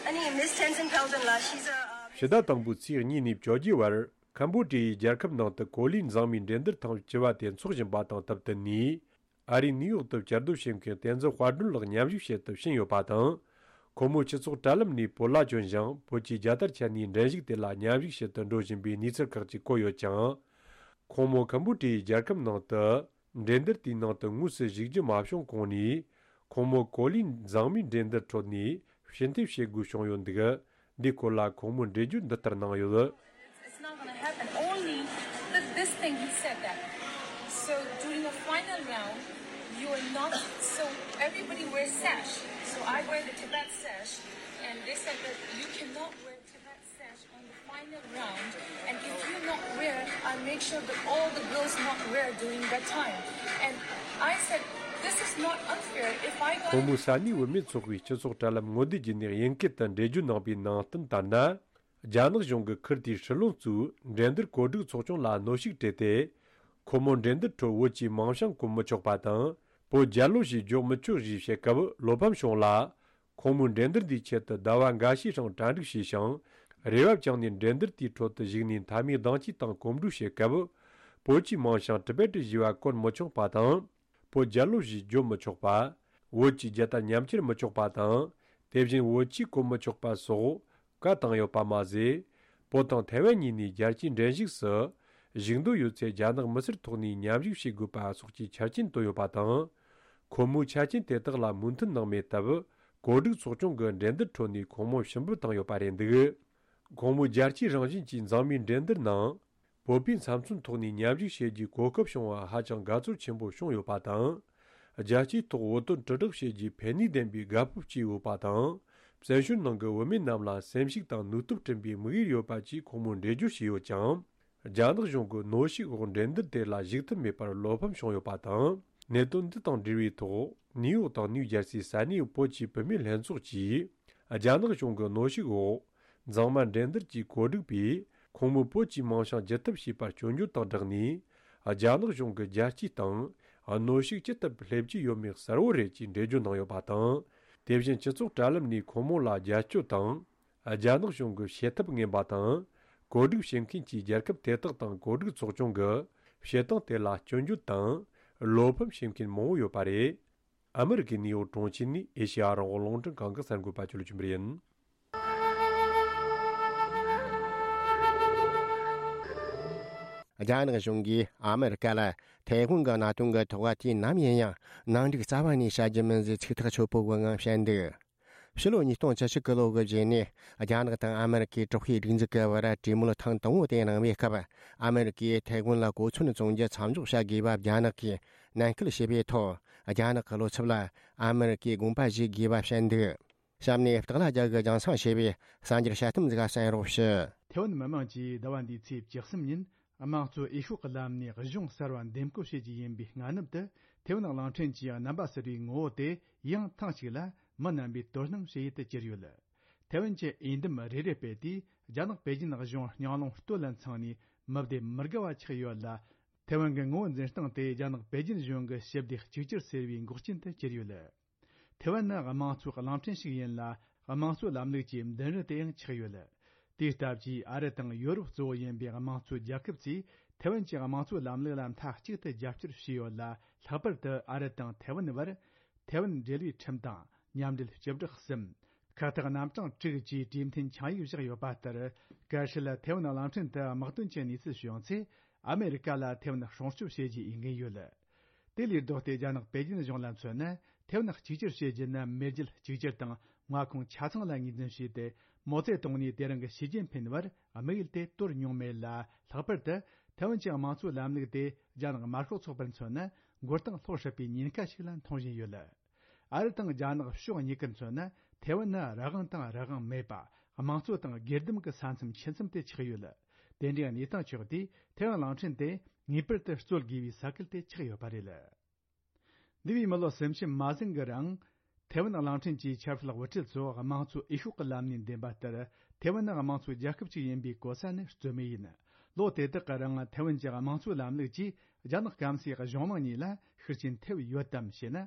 ཨ་ནི་Miss Tenzin Paodon ལ་she's a ཕྱི་ཟླ་དང་པོའི་ཚེས་གཉིས་ནས་བཅོ་བརྒྱད་བར་ཁམ་བྷོ་ཌི་ཡའི་རྒྱལ་ཁབ་ནང་དུ་གོ་ལའི་མཛངས་མའི་འགྲན་བསྡུར་ཐེངས་བཅུ་བ་དེ་འཚོགས་བཞིན་པ་དང་སྟབས་བསྟུན་ནས། ཨ་རིའི་ནིའུ་ཡོག་ཏུ་བཅའ་སྡོད་བྱེད་མཁན་བསྟན་འཛིན་དཔལ་སྒྲོན་ལགས་མཉམ་ཞུགས་བྱེད་དུ་ཕྱིན་ཡོད་པ་དང་། ཁོ་མོ་སྤྱི་ཚོགས་དྲ་ལམ་ནས་བོད་ལྭ་གྱོན་ཞིང་བོད་ཀྱི་རྒྱལ་དར་འཕྱར་ནས་འགྲན་ཞུགས་དེ་ལ་མཉམ་ཞུགས་བྱེད་དུ་འགྲོ་བཞིན་པའི་གནས་ཚུལ་ཁག་ཅིག་བཀོད་ཡོད་ཀྱང་། ཁོང་མོ་ཁམ་བྷོ་ཌི་ཡའི་རྒྱལ་ཁབ་ནང་དུ་འགྲན་བསྡུར་དེའི་ནང་དུ་དངོས་སུ་ཞུགས་རྒྱུ་མ་བྱུང་གོང་ནས། ཁོང་མོ་གོ་ལའི་མཛངས་མའི་འགྲན་བསྡུར་ཁྲོད་ནས་ཕྱིར་འཐེན་བྱེད་དགོས་བྱུང་ཡོད་འདུག། འདིའི་སྐོར་ལ་ཁོང་མོས་འགྲེལ་བརྗོད་འདི་ལྟར་གནང་ཡོད། It's not gonna happen. Only th- this thing he said that. So during a final round, you are not. So everybody wears sash. So I wear the Tibet sash, and they said that you cannot wear Tibet sash on the final round. And if you not wear, I make sure that all the girls not wear during that time. And I said, this is not unfair. If I got ཁོང་མོས་ས་གནས་བུད་མེད་ཚོགས་པའི་སྤྱི་ཚོགས་དྲ་ལམ་ངོ་དེབ་བརྒྱུད་ནས་དབྱིན་སྐད་དུ་འགྲེལ་བརྗོད་གནང་པའི་ནང་དོན་ལྟར་ན། རྒྱ་ནག་གཞུང་གིས་ཁུལ་དེའི་ཧྲི་ལོན་གཙོས་འགྲན་བསྡུར་གོ་སྒྲིག་ཚོགས་ཆུང་ལ་གནོན་ཤུགས་སྤྲད་དེ། ཁོ་མོ་འགྲན་བསྡུར་ཁྲོད་བོད་ཀྱི་མིང་བྱང་བཀོད་མི་ཆོག་པ་དང་། བོད་རྒྱལ་ལོ་ཞེས་བརྗོད་མི་ཆོག་ཞེས་བཤད་སྐབས་བློ་ཕམ་བྱུང་ལ། ཁོང་མོས་འགྲན་བསྡུར་འདིའི་ཆེད་དུ་ཟླ་བ་འགའ་ཤས་ཤིང་གྲ་སྒྲིག་བྱས་ཤིང་། རེ་བ་བཅངས་ནས་འགྲན་བསྡུར་དེའི་ཁྲོད་དུ་ཞུགས་ནས་མཐའ་མའི་ཟླ་མཆོད་དང་གོམ་བགྲོད་བྱེད་སྐབས། བོད་ཀྱི་མིང་བྱང་ཊི་བེ་ཊི་ཞེས་པ་བཀོད་མི་ཆོག་པ་དང་། བོད་རྒྱལ་ལོ་ཞེས་བརྗོད་མི་ཆོག་པ། བོད་ཀྱི་རྒྱལ་དར་ཉམས་ཁྱེར་མི་ཆོག་པ་དང་། དེ་བཞིན་བོད་ཆས་གོན་མི་ཆོག་པ་སོགས་བཀའ་བཏང་ཡོད་པ་མ་ཟད། བོད་དང་ཐའེ་ཝན་གཉིས་ནས་རྒྱལ་སྤྱིའི་འགྲན་ཞུགས་སུ་ཞུགས་འདོད་ཡོད་ཚེ་རྒྱ་ནག་མི་སེར་ཐོག་ནས་མཉམ་ཞུགས་བྱེད་དགོས་པ་སོགས་ཀྱི་ཆ་རྐྱེན་བཏོན་ཡོད་པ་དང་། ཁོ་མོའི་ཆ་རྐྱེན་དེ་དག་ལ་མོས་མཐུན་གནང་མེད་སྟབས། གོ་སྒྲིག་ཚོགས་ཆུང་གིས་འགྲན་བསྡུར་ཁྲོད་ནས་ཁོང་མོ་ཕྱིར་འབུད་བཏང་ཡོད་པ་རེད་འདུག། ཁོང་མོས་རྒྱལ་སྤྱིའི་རང་བཞིན་གྱི་མཛངས་མའི་འགྲན་བསྡུར་ནང་། བོད་པའི་ཚབ་མཚོན་ཐོག་ནས་མཉམ་ཞུགས་བྱེད་རྒྱུའི་གོ་སྐབས་བྱུང་བ་ཧ་ཅང་དགའ་ཚོར་ཆེན་པོ་བྱུང་ཡོད་པ་དང་། རྒྱལ་སྤྱིའི་ཐོག་བོད་དོན་དྲིལ་བསྒྲགས་བྱེད་རྒྱུའི་ཕན་ནུས་ལྡན་པའི་དགའ་སྤོབས་སྐྱེས་ཡོད་པ་དང་། བཙན་བྱོལ་ནང་གི་བུད་མེད་རྣམས་ལ་སེམས་ཤུགས་དང་ནུས་སྟོབས་བསྐྲུན་པའི་དམིགས་ཡུལ་ཡོད་པ་བཅས་ཁོང་མོས་འགྲེལ་བརྗོད་བྱས་ཡོད་ཀྱང་། རྒྱ་ནག་གཞུང་གི་གནོན་ཤུགས་འོག་འགྲན་བསྡུར་དེ་ལ་ཞུགས་ཐུབ་མེད་པར་བློ་ཕམ་བྱུང་ཡོད་པ་དང་། གནད་དོན་འདི་དང་འབྲེལ་བའི་ཐོག་ནིའུ་ཡོག་དང་ནིའུ་ཇར་སིའི་ས་གནས་བོད་ཀྱི་བུད་མེད་ལྷན་ཚོགས་ཀྱིས། རྒྱ་ནག་གཞུང་གི་གནོན་ཤུགས་འོག་མཛངས་མ་འགྲན་བསྡུར་གྱི་གོ་སྒྲིག་པས། ཁོང་མོས་བོད་ཀྱི་མིང་བྱང་ཇི་ཐུབ་བྱས་པར་སྐྱོན་བརྗོད་དང་སྦྲགས་ནས། རྒྱ་ནག་གཞུང་གི་རྒྱལ་སྤྱིའི་སྟེང་གནོན་ཤུགས་ཅི་ཐུབ་སླེབས་ཀྱི་ཡོད་མེད་གསལ་བོ་རེད་ཅེས་འགྲེལ་བརྗོད་གནང་ཡོད་པ་དང་། དེ་བཞིན་སྤྱི་ཚོགས་དྲ་ལམ་ནས་ཁོང་མོ་ལ་རྒྱབ་སྐྱོར་དང་། རྒྱ་ནག་གཞུང་གི་བྱེད་ཐབས་ངན་པ་དང་། གོ་སྒྲིག་བྱེད་མཁན་གྱི་རྒྱལ་ཁབ་དེ་དག་དང་གོ་སྒྲིག་ཚོགས་ཆུང་གི་བྱེད་སྟངས་དེ་ལ་སྐྱོན་བརྗོད་དང་། བློ་ཕམ་བྱེད་མཁན་མང་བོ་ཡོད་པ་རེད། ཨ་མི་རི་ཀའི་ནིའུ་ཡོག་གྲོང་ཁྱེར་ནས་ཨེ་ཤེ་ཡ་རང་དབང་རླུང་འཕྲིན་ཁང་གི་གསར་འགོད་པ་ཅོ་ལི་ཅུན་པར་ཡིན། རྒྱ་ནག་གཞུང་གིས་ཨ་མི་རི་ཀ་ལ་ཐའེ་ཝན་གྱི་གནད་དོན་གྱི་ཐོག་དུས་ནམ་ཡིན་ཡང་ནང་འགྲིག་རྩ་བ་ནས་བྱ་རྒྱུ་མིན་ཟེར་ཚིག་ཐག་ཆོད་པོ་གི་ངང་བཤད་འདུག་ཕྱི་ལོ་ཉིས་སྟོང་བཅུ་གཅིག་གི་ལོ་གི་རྗེས་ནས་རྒྱ་ནག་དང་ཨ་མི་རི་ཀའི་དྲག་པོའི་སྒྲིག་འཛུགས་ཀྱི་བར་གྲོས་མོལ་ཐེངས་དང་པོ་དེ་གནང་བའི་སྐབས། ཨ་མི་རི་ཀས་ཐའེ་ཝན་ལ་གོ་མཚོན་བཙོང་རྒྱུ་མཚམས་འཇོག་བྱ་དགོས་པ་རྒྱ་ནག་གིས་ནན་སྐུལ་བྱས་པའི་ཐོག་རྒྱ་ནག་གི་བློ་འཚབ་ལ་ཨ་མི་རི་ཀས་དགོངས་པ་བཞེས་དགོས་པ་བཤད་འདུག་གཤམ་ནས་སྟག་ལྷ་རྒྱལ་གྱིས་རྒྱང་སྲིང་བྱས་པའི་གསར་འགྱུར་དཔྱད་གཏམ་ཟིག་གསན་རོགས་ཞུ། ཐའེ་ཝན་མི་དམངས་ཀྱིས་ཟླ་བ་འདིའི་ཚེས་བཅུ་གསུམ་ཉིན་དམངས་གཙོ་འོས་ཤོག་གི་ལམ་ནས་གཞུང་གསར་བ་འདེམས་བསྐོ་བྱེད་རྒྱུ་ཡིན་པའི་སྔ་ནུབ་ཏུ། ཐའེ་ཝན་གླིང་ཕྲན་གྱི་རྣམ་པ་གསར་བའི་ངོ་བོ་དེ་ཡང་ཐེངས་གཅིག་ལ་མི་རྣམ་པའི་དོ་སྣང་བྱེད་ཡུལ་དུ་གྱུར་ཡོད། ཐའེ་ཝན་གྱི་འོས་འདེམས་རེ་རེ་སྤེལ་དུས་རྒྱ་ནག་པེ་ཅིན་གཞུང་སྙིང་རླུང་སྟོད་ལ་འཚང་ནས་མི་སྡེ་མི་དགའ་བ་ཆགས་ཡོད་ལ། ཐའེ་ཝན་གྱི་ངོ་བོ་འཛིན་སྟངས་དེ་རྒྱ་ནག་པེ་ཅིན་གཞུང་གི་ཞི་བདེ་གཅིག་གྱུར་ཟེར་བའི་འགོག་རྐྱེན་དུ་གྱུར་ཡོད། ཐའེ་ཝན་ནི་དམངས་གཙོའི་གླིང་ཕྲན་ཞིག་ཡིན་ལ། དམངས་གཙོའི་ལམ་ལུགས་ཀྱི་མདུན་རི་དེ་ཡང་ཆགས་ཡོད། དེའི་སྟབས་ཀྱིས་ཨ་རི་དང་ཡོ་རོབ་གཙོ་བོ་ཡིན་པའི་དམངས་གཙོའི་རྒྱལ་ཁབ་ཚོས་ཐའེ་ཝན་གྱི་དམངས་གཙོའི་ལམ་ལུགས་ལ་མཐའ་གཅིག་ཏུ་རྒྱབ་སྐྱོར་བྱས་ཡོད་ལ། ལྷག་པར་དུ་ཨ་རི་དང་ཐའེ་ཝན་བར་ཐའེ་ཝན་འབྲེལ་བའི་ཁྲིམས་དང་མཉམ་འབྲེལ་སྤྱི་བསྒྲགས་གསུམ། ཁ་བཏགས་རྣམ་གྲངས་དྲུག་བཅས་གྲོས་མཐུན་ཆིངས་ཡིག་བཞག་ཡོད་པ་ལྟར། གལ་སྲིད་ཐའེ་ཝན་གླིང་ཕྲན་དུ་དམག་དོན་གྱི་གནས་ཚུལ་བྱུང་ཚེ། ཨ་མེ་རི་ཀ་ལ་ཐའེ་ཝན་སྲུང་སྐྱོབ་བྱེད་རྒྱུའི་འོས་འགན་ཡོད། དེ་ལས་ལྡོག་སྟེ་རྒྱ་ནག་པེ་ཅིན་གཞུང་ལ་མཚོན་ན། ཐའེ་ཝན་གཅིག་གྱུར་བྱེད་རྒྱུ་ནི་མེས་རྒྱལ་གཅིག་གྱུར་དང་མངའ་ཁོངས་ཆ་ཚང་ལ་ངོས་འཛིན་བྱས་ཏེ། མའོ་ཙེ་ཏུང་ནས་དེ་རིང་གི་ཞི་ཅིན་ཕིན་བར་དམིགས་ཡུལ་དེ་དོར་མྱོང་མེད་ལ། ལྷག་པར་དུ་ཐའེ་ཝན་གྱི་དམངས་གཙོའི་ལམ་ལུགས་དེ་རྒྱ་ནག་དམར་ཤོག་ཚོགས་པར་མཚོན་ན་མགོ་རྟིང་སློག་སྲིད་པའི་ཉེན་ཁ་ཞིག་ལ་མཐོང་བཞིན་ཡོད། ཨ་རི་དང་རྒྱ་ནག་ཕྱོགས་གཉིས་ཀར་མཚོན་ན་ཐའེ་ཝན་ནི་རང་དབང་དང་རང་དབང་མེད་པ། དམངས་གཙོ་དང་སྒེར་སྡེམ་གྱི་ས་མཚམས་ཆེ་ཙམ་དེ་ཆགས་ཡོད། དེ་འདྲའི་གནས་སྟངས་ཆགས་དུས་ཐའེ་ཝན་གླིང་ཕྲན་དེ་ངེས་པར་དུ་རྩོད་དགོས་པའི་ས་ཁུལ་དེ་ཆགས་ཡོད་པ་རེད། འདས་པའི་མི་ལོ་སུམ་ཅུ་མ་ཟིན་གྱི་རིང་། ཐའེ་ཝན་གླིང་ཕྲན་གྱི་ཆབ་སྲིད་དབུ་ཁྲིད་ཚོ་དམངས་གཙོའི་འོས་ཤོག་གི་ལམ་ནས་འདེམས་པ་ལྟར། ཐའེ་ཝན་ནི་དམངས་གཙོའི་རྒྱལ་ཁབ་ཅིག་ཡིན་པའི་གོ་ས་ནི་རྩོད་མེད་ཡིན། ལོ་དེ་དག་གི་རིང་ཐའེ་ཝན་གྱི་དམངས་གཙོའི་ལམ་ལུགས་ཀྱིས་རྒྱ་ནག་སྐམ་སའི་གཞུང་མང་གཉིས་ལ་ཤུགས་རྐྱེན་ཐེབས་ཡོད་དམ་ཞེ་ན།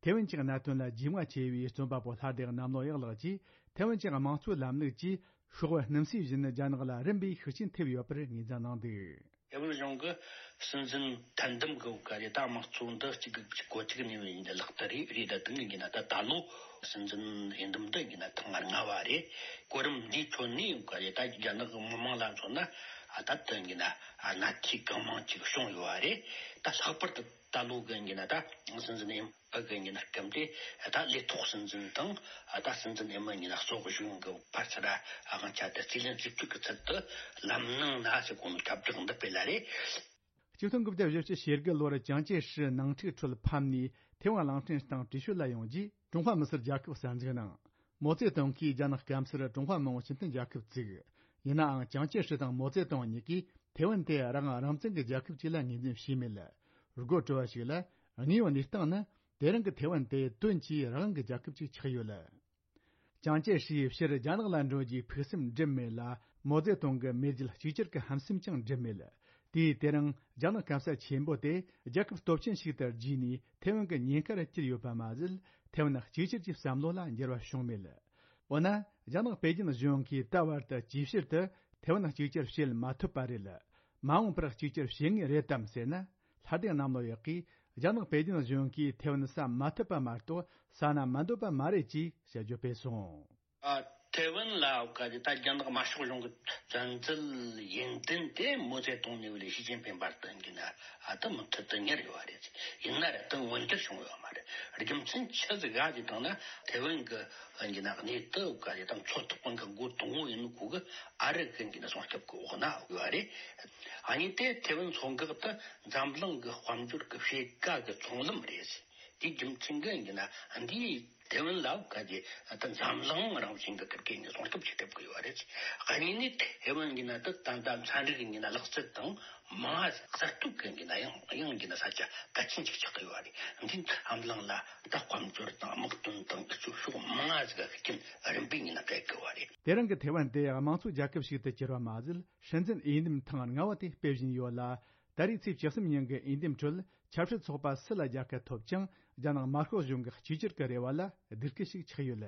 ཐའེ་ཝན་གྱི་གནད་དོན་ལ་རྒྱུས་མངའ་ཆེ་བའི་རྩོམ་པ་པོ་ལྷ་སྡེ་གནམ་ལོ་གཡག་ལགས་ཀྱིས། ཐའེ་ཝན་གྱི་དམངས་གཙོའི་ལམ་ལུགས་ཀྱིས་ཤོག་བུ་སྣུམ་སྲིས་བཞིན་རྒྱ་ནག་ལ་རིམ་པས་ཤུགས་རྐྱེན་ཐེབས་ཡོད་པར་ངོས་འཛིན་གནང་འདུག་ཐའེ་ཝན་གཞུང་གི་སྲིད་འཛིན་ཐད་འདེམས་ཀྱི་འོག་ག་རེ་ད་དམངས་གཙོ་འདི་གཅིག་གི་གཅིག་གོ་གཅིག་ནས་ཡིན་ལག་བསྟར་རེད། རེད་ད་དུང་ཡིན་ན་ད་ད་ལོ་སྲིད་འཛིན་འོས་འདེམས་འདི་ཡིན་ན་ཐེངས་ལྔ་བ་རེད། གོ་རིམ་འདིའི་ཁྲོད་ནས་ག་རེ་ད་རྒྱ་ནག་གི་མི་མང་ལ་མཚོན་ན་ད་དུང་ཡིན་ན་གནད་འཁེལ་གང་མང་ཅིག་བྱུང་ཡོད་པ་རེད། ད་ལྷག་པར་དུ་ད་ལོ་གི་ཡིན་ན་ད་སྲིད་འཛིན་འོས་འཕགས་ཀྱི་ཉིན་སྐབས་དེ་ད་ལས་ཐོག་སྲིད་འཛིན་དང་ད་སྲིད་འཛིན་ཨེ་མ་ཉིན་གཙོ་བོ་གཞུང་གི་བར་ཚད་དབང་ཆ་དེ་རྩིས་ལེན་རྩིས་སྤྲོད་ཀྱི་ཚུལ་དུ་ལམ་ནང་ན་ཟེར་གོ་ནོ་ཁྱབ་བསྒྲགས་འདི་སྤེལ་ལ་རེད། གཅིག་སྟོང་དགུ་བརྒྱ་བཞི་བཅུ་ཞེ་དགུ་ལོར་ཅང་ཅེ་ཧྲི་ནང་འཁྲུག་ཁྲོད་ཕམ་ནས་ཐེ་ཝན་གླིང་ཕྲན་སྟེང་བྲོས་བྱོལ་ལ་ཡོང་རྗེས་ཀྲུང་ཧྭ་མི་སེར་རྒྱལ་ཁབ་གསར་འཛུགས་གནང་། མའོ་ཙེ་ཏུང་གིས་རྒྱ་ནག་སྐམ་སར་ཀྲུང་ཧྭ་མི་དམངས་སྤྱི་མཐུན་རྒྱལ་ཁབ་བཙུགས། ཡིན་ནའང་ཅང་ཅེ་ཧྲི་དང་མའོ་ཙེ་ཏུང་གཉིས་ཀས་ཐེ་ཝན་དེ་རང་དབང་རང་བཙན་གྱི་རྒྱལ་ཁབ་ཅིག་ལ་ངོས་འཛིན་བྱས་མེད། དགོད་བྲོ་བ་ཞིག་ལ། དངོས་ཡོད་གནས་སྟངས་ནི། དེ་རིང་གི་ཐེ་ཝན་དེ་དོན་གྱིས་རང་དབང་གི་རྒྱལ་ཁབ་ཅིག་ཆགས་ཡོད། ཅང་ཅེ་ཧྲིས་ཕྱིར་རྒྱ་ནག་ལ་འགྲོ་རྒྱུའི་ཕུགས་བསམ་འགྲིབ་མེད་ལ། མའོ་ཙེ་ཏུང་གི་མེས་རྒྱལ་གཅིག་གྱུར་གྱི་ཧམ་སེམས་ཀྱང་འགྲིབ་མེད། དེས་དེ་རིང་རྒྱ་ནག་སྐམ་ས་ཆེན་པོ་དེ་རྒྱལ་ཁབ་སྟོབས་ཆེན་ཞིག་ཏུ་བརྗིས་ནས་ཐེ་ཝན་གྱི་ཉེན་ཁར་གྱུར་ཡོད་པ་མ་ཟད། ཐེ་ཝན་གཅིག་གྱུར་གྱི་བསམ་བློ་ལ་འགྱུར་བ་བྱུང་མེད། འོ་ན། རྒྱ་ནག་པེ་ཅིན་གཞུང་གིས་ད་བར་དུ་ཇེ་ཆེར་དུ་ཐེ་ཝན་གཅིག་གྱུར་བྱེད་མ་ཐུབ་པ་རེད། མ་འོངས་པར་གཅིག་གྱུར་བྱེད་ངེས་རེད་དམ་ཟེར་ན། ལྷ་ལྡན་གནམ་ལོ་ཡག་གིས་རྒྱ་ནག་པེ་ཅིན་གཞུང་གིས་ཐེ་ཝན་ཟ་མ་ཐུབ་པ་མ་གཏོགས་ཟ་ན་མི་འདོད་པ་མ་རེད་ཅེས་དཔྱད་བརྗོད་སྤེལ་སོང་། ཨ། ཐེ་ཝན་ལ་ག་རེ་ད་རྒྱ་ནག་དམར་ཤོག་གཞུང་གི་བཙན་འཛུལ་ཡུན་བརྟན་དེ་མའོ་ཙེ་ཏུང་ནས་བ་ལས་ཞི་ཅིན་ཕིང་བར་དུ་ཡིན་ན་ཨ་ད་མུ་མཐུད་དུ་གཉེར་ཡོད་པ་རེད། ཡིན་ན་ར་ད་མངོན་འགྱུར་བྱུང་ཡོད་མ་རེད། རྒྱུ་མཚན་ཆི་ཟིག་ག་ཅིག་བཏང་ན་ཐེ་ཝན་གི་ཡིན་ན་གནས་སྟངས་ག་རེ་ད་མཚོ་ཐོག་པ་གི་འགོ་དང་པོ་ཡིན་ནོ་ཁོ་གི་ཨ་རི་གི་ཡིན་ན་སྲུང་སྐྱོབ་གི་འོག་ན་ཡོད་པ་རེད། ཨ་ནི་དེ་ཐེ་ཝན་མཚོ་འགག་ཏུ་འཛམ་གླིང་གི་དཔལ་འབྱོར་གི་ཕྱེད་ཀ་གི་ཚོང་ལམ་རེད། དེའི་རྒྱུ་མཚན་གྱིས་ཡིན་ན་འདིའི་ ཐེ་ཝན་ལ་ཁ་ཅིག་ད་འཛམ་གླིང་རང་བཞིན་གྱི་ཁིར་ཀའི་ནི་སྲུང་སྐྱོབ་བྱེད་ཐུབ་ཀྱི་ཡོད་རེད། གཉིས་ནི་ཐེ་ཝན་གྱི་ནང་དུ་ད་ལྟ་ཚན་རིག་གི་ནང་ལག་རྩལ་དང་མ་གསར་གཏོད་ཀྱི་ནང་ཡང་ཡང་གྱི་ནང་ས་ཆ་གལ་ཆེན་ཅིག་ཆགས་ཀྱི་ཡོད་རེད། འདི་འཛམ་གླིང་ལ་ད་དཔལ་འབྱོར་དང་དམག་དོན་དང་སྤྱི་ཚོགས་ཕྱོགས་མང་ཟིག་གི་ཤུགས་རྐྱེན་རིམ་པས་ནི་སྤེལ་གི་ཡོད་རེད། དེ་རིང་གི་ཐེ་ཝན་དེ་དམངས་གཙོ་རྒྱལ་ཁབ་ཞིག་ཏུ་གྱུར་བ་མ་ཟད། སྲིད་འཛིན་འོས་འདེམས་ཐེངས་ལྔ་བ་དེ་སྤེལ་བཞིན་ཡོད་ལ། ད་རེས་ཚེས་བཅུ་གསུམ་ཉིན་གྱི་འོས་འདེམས་ཁྲོད་ཆབ་སྲིད་ཚོགས་པ་སུ་ལ་རྒྱལ་ཁ་ཐོབ་ཀྱང་རྒྱ་ནག་དམར་ཤོག་གཞུང་གི་གཅིག་གྱུར་གྱི་རེ་བ་ལ་སྡུག་སྐུལ་ཞིག་ཆགས་ཡོད།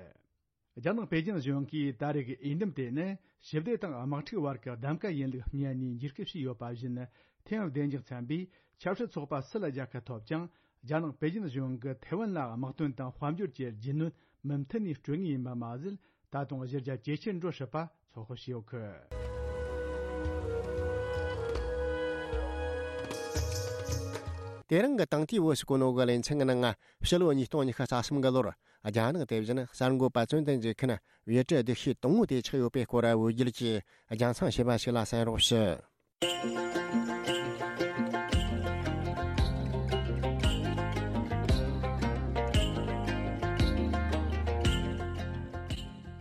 རྒྱ་ནག་པེ་ཅིན་གཞུང་གིས་ད་རེས་ཀྱི་འོས་འདེམས་དེ་ནི་ཞི་བདེ་དང་དམག་འཁྲུག་བར་གྱི་གདམ་ག་ཡིན་ལུགས་སྨྲས་ནས་འཇིགས་སྐུལ་བྱས་ཡོད་པ་བཞིན། ཐེངས་བདུན་ཅུ་ཚན་པའི་ཆབ་སྲིད་ཚོགས་པ་སུ་ལ་རྒྱལ་ཁ་ཐོབ་ཀྱང་རྒྱ་ནག་པེ་ཅིན་གཞུང་གིས་ཐེ་ཝན་ལ་དམག་དོན་དང་དཔལ་འབྱོར་གྱི་རྒྱུས་ལོན་མུ་མཐུད་ནས་སྤྲོད་ངེས་ཡིན་པ་མ་ཟད། ད་དུང་གཞི་རྒྱ་ཇེ་ཆེར་འགྲོ་སྲིད་པ་ཚོད་དཔག་བྱས་ཡོད་གི། དེ་རིང་གི་དང་ཐོས་བོད་ཀྱི་གོ་ནོ་གི་ལེ་ཚན་གྱི་ནང་ཕྱི་ལོ་ཉིས་སྟོང་ཉི་ཤུ་རྩ་གསུམ་གི་ལོར་རྒྱ་ནག་དེ་བཞིན་གསར་འགོད་པ་ཙུན་ཏན་ཇེ་ཁན་བོད་ཀྱི་སྡེ་ཤོས་དང་པོ་དེ་ཆགས་ཡོད་པའི་སྐོར་བོད་བརྒྱུད་ཀྱིས་རྒྱང་མཚངས་བྱས་པ་ཞིག་ལ་གསན་རོགས་ཞུ།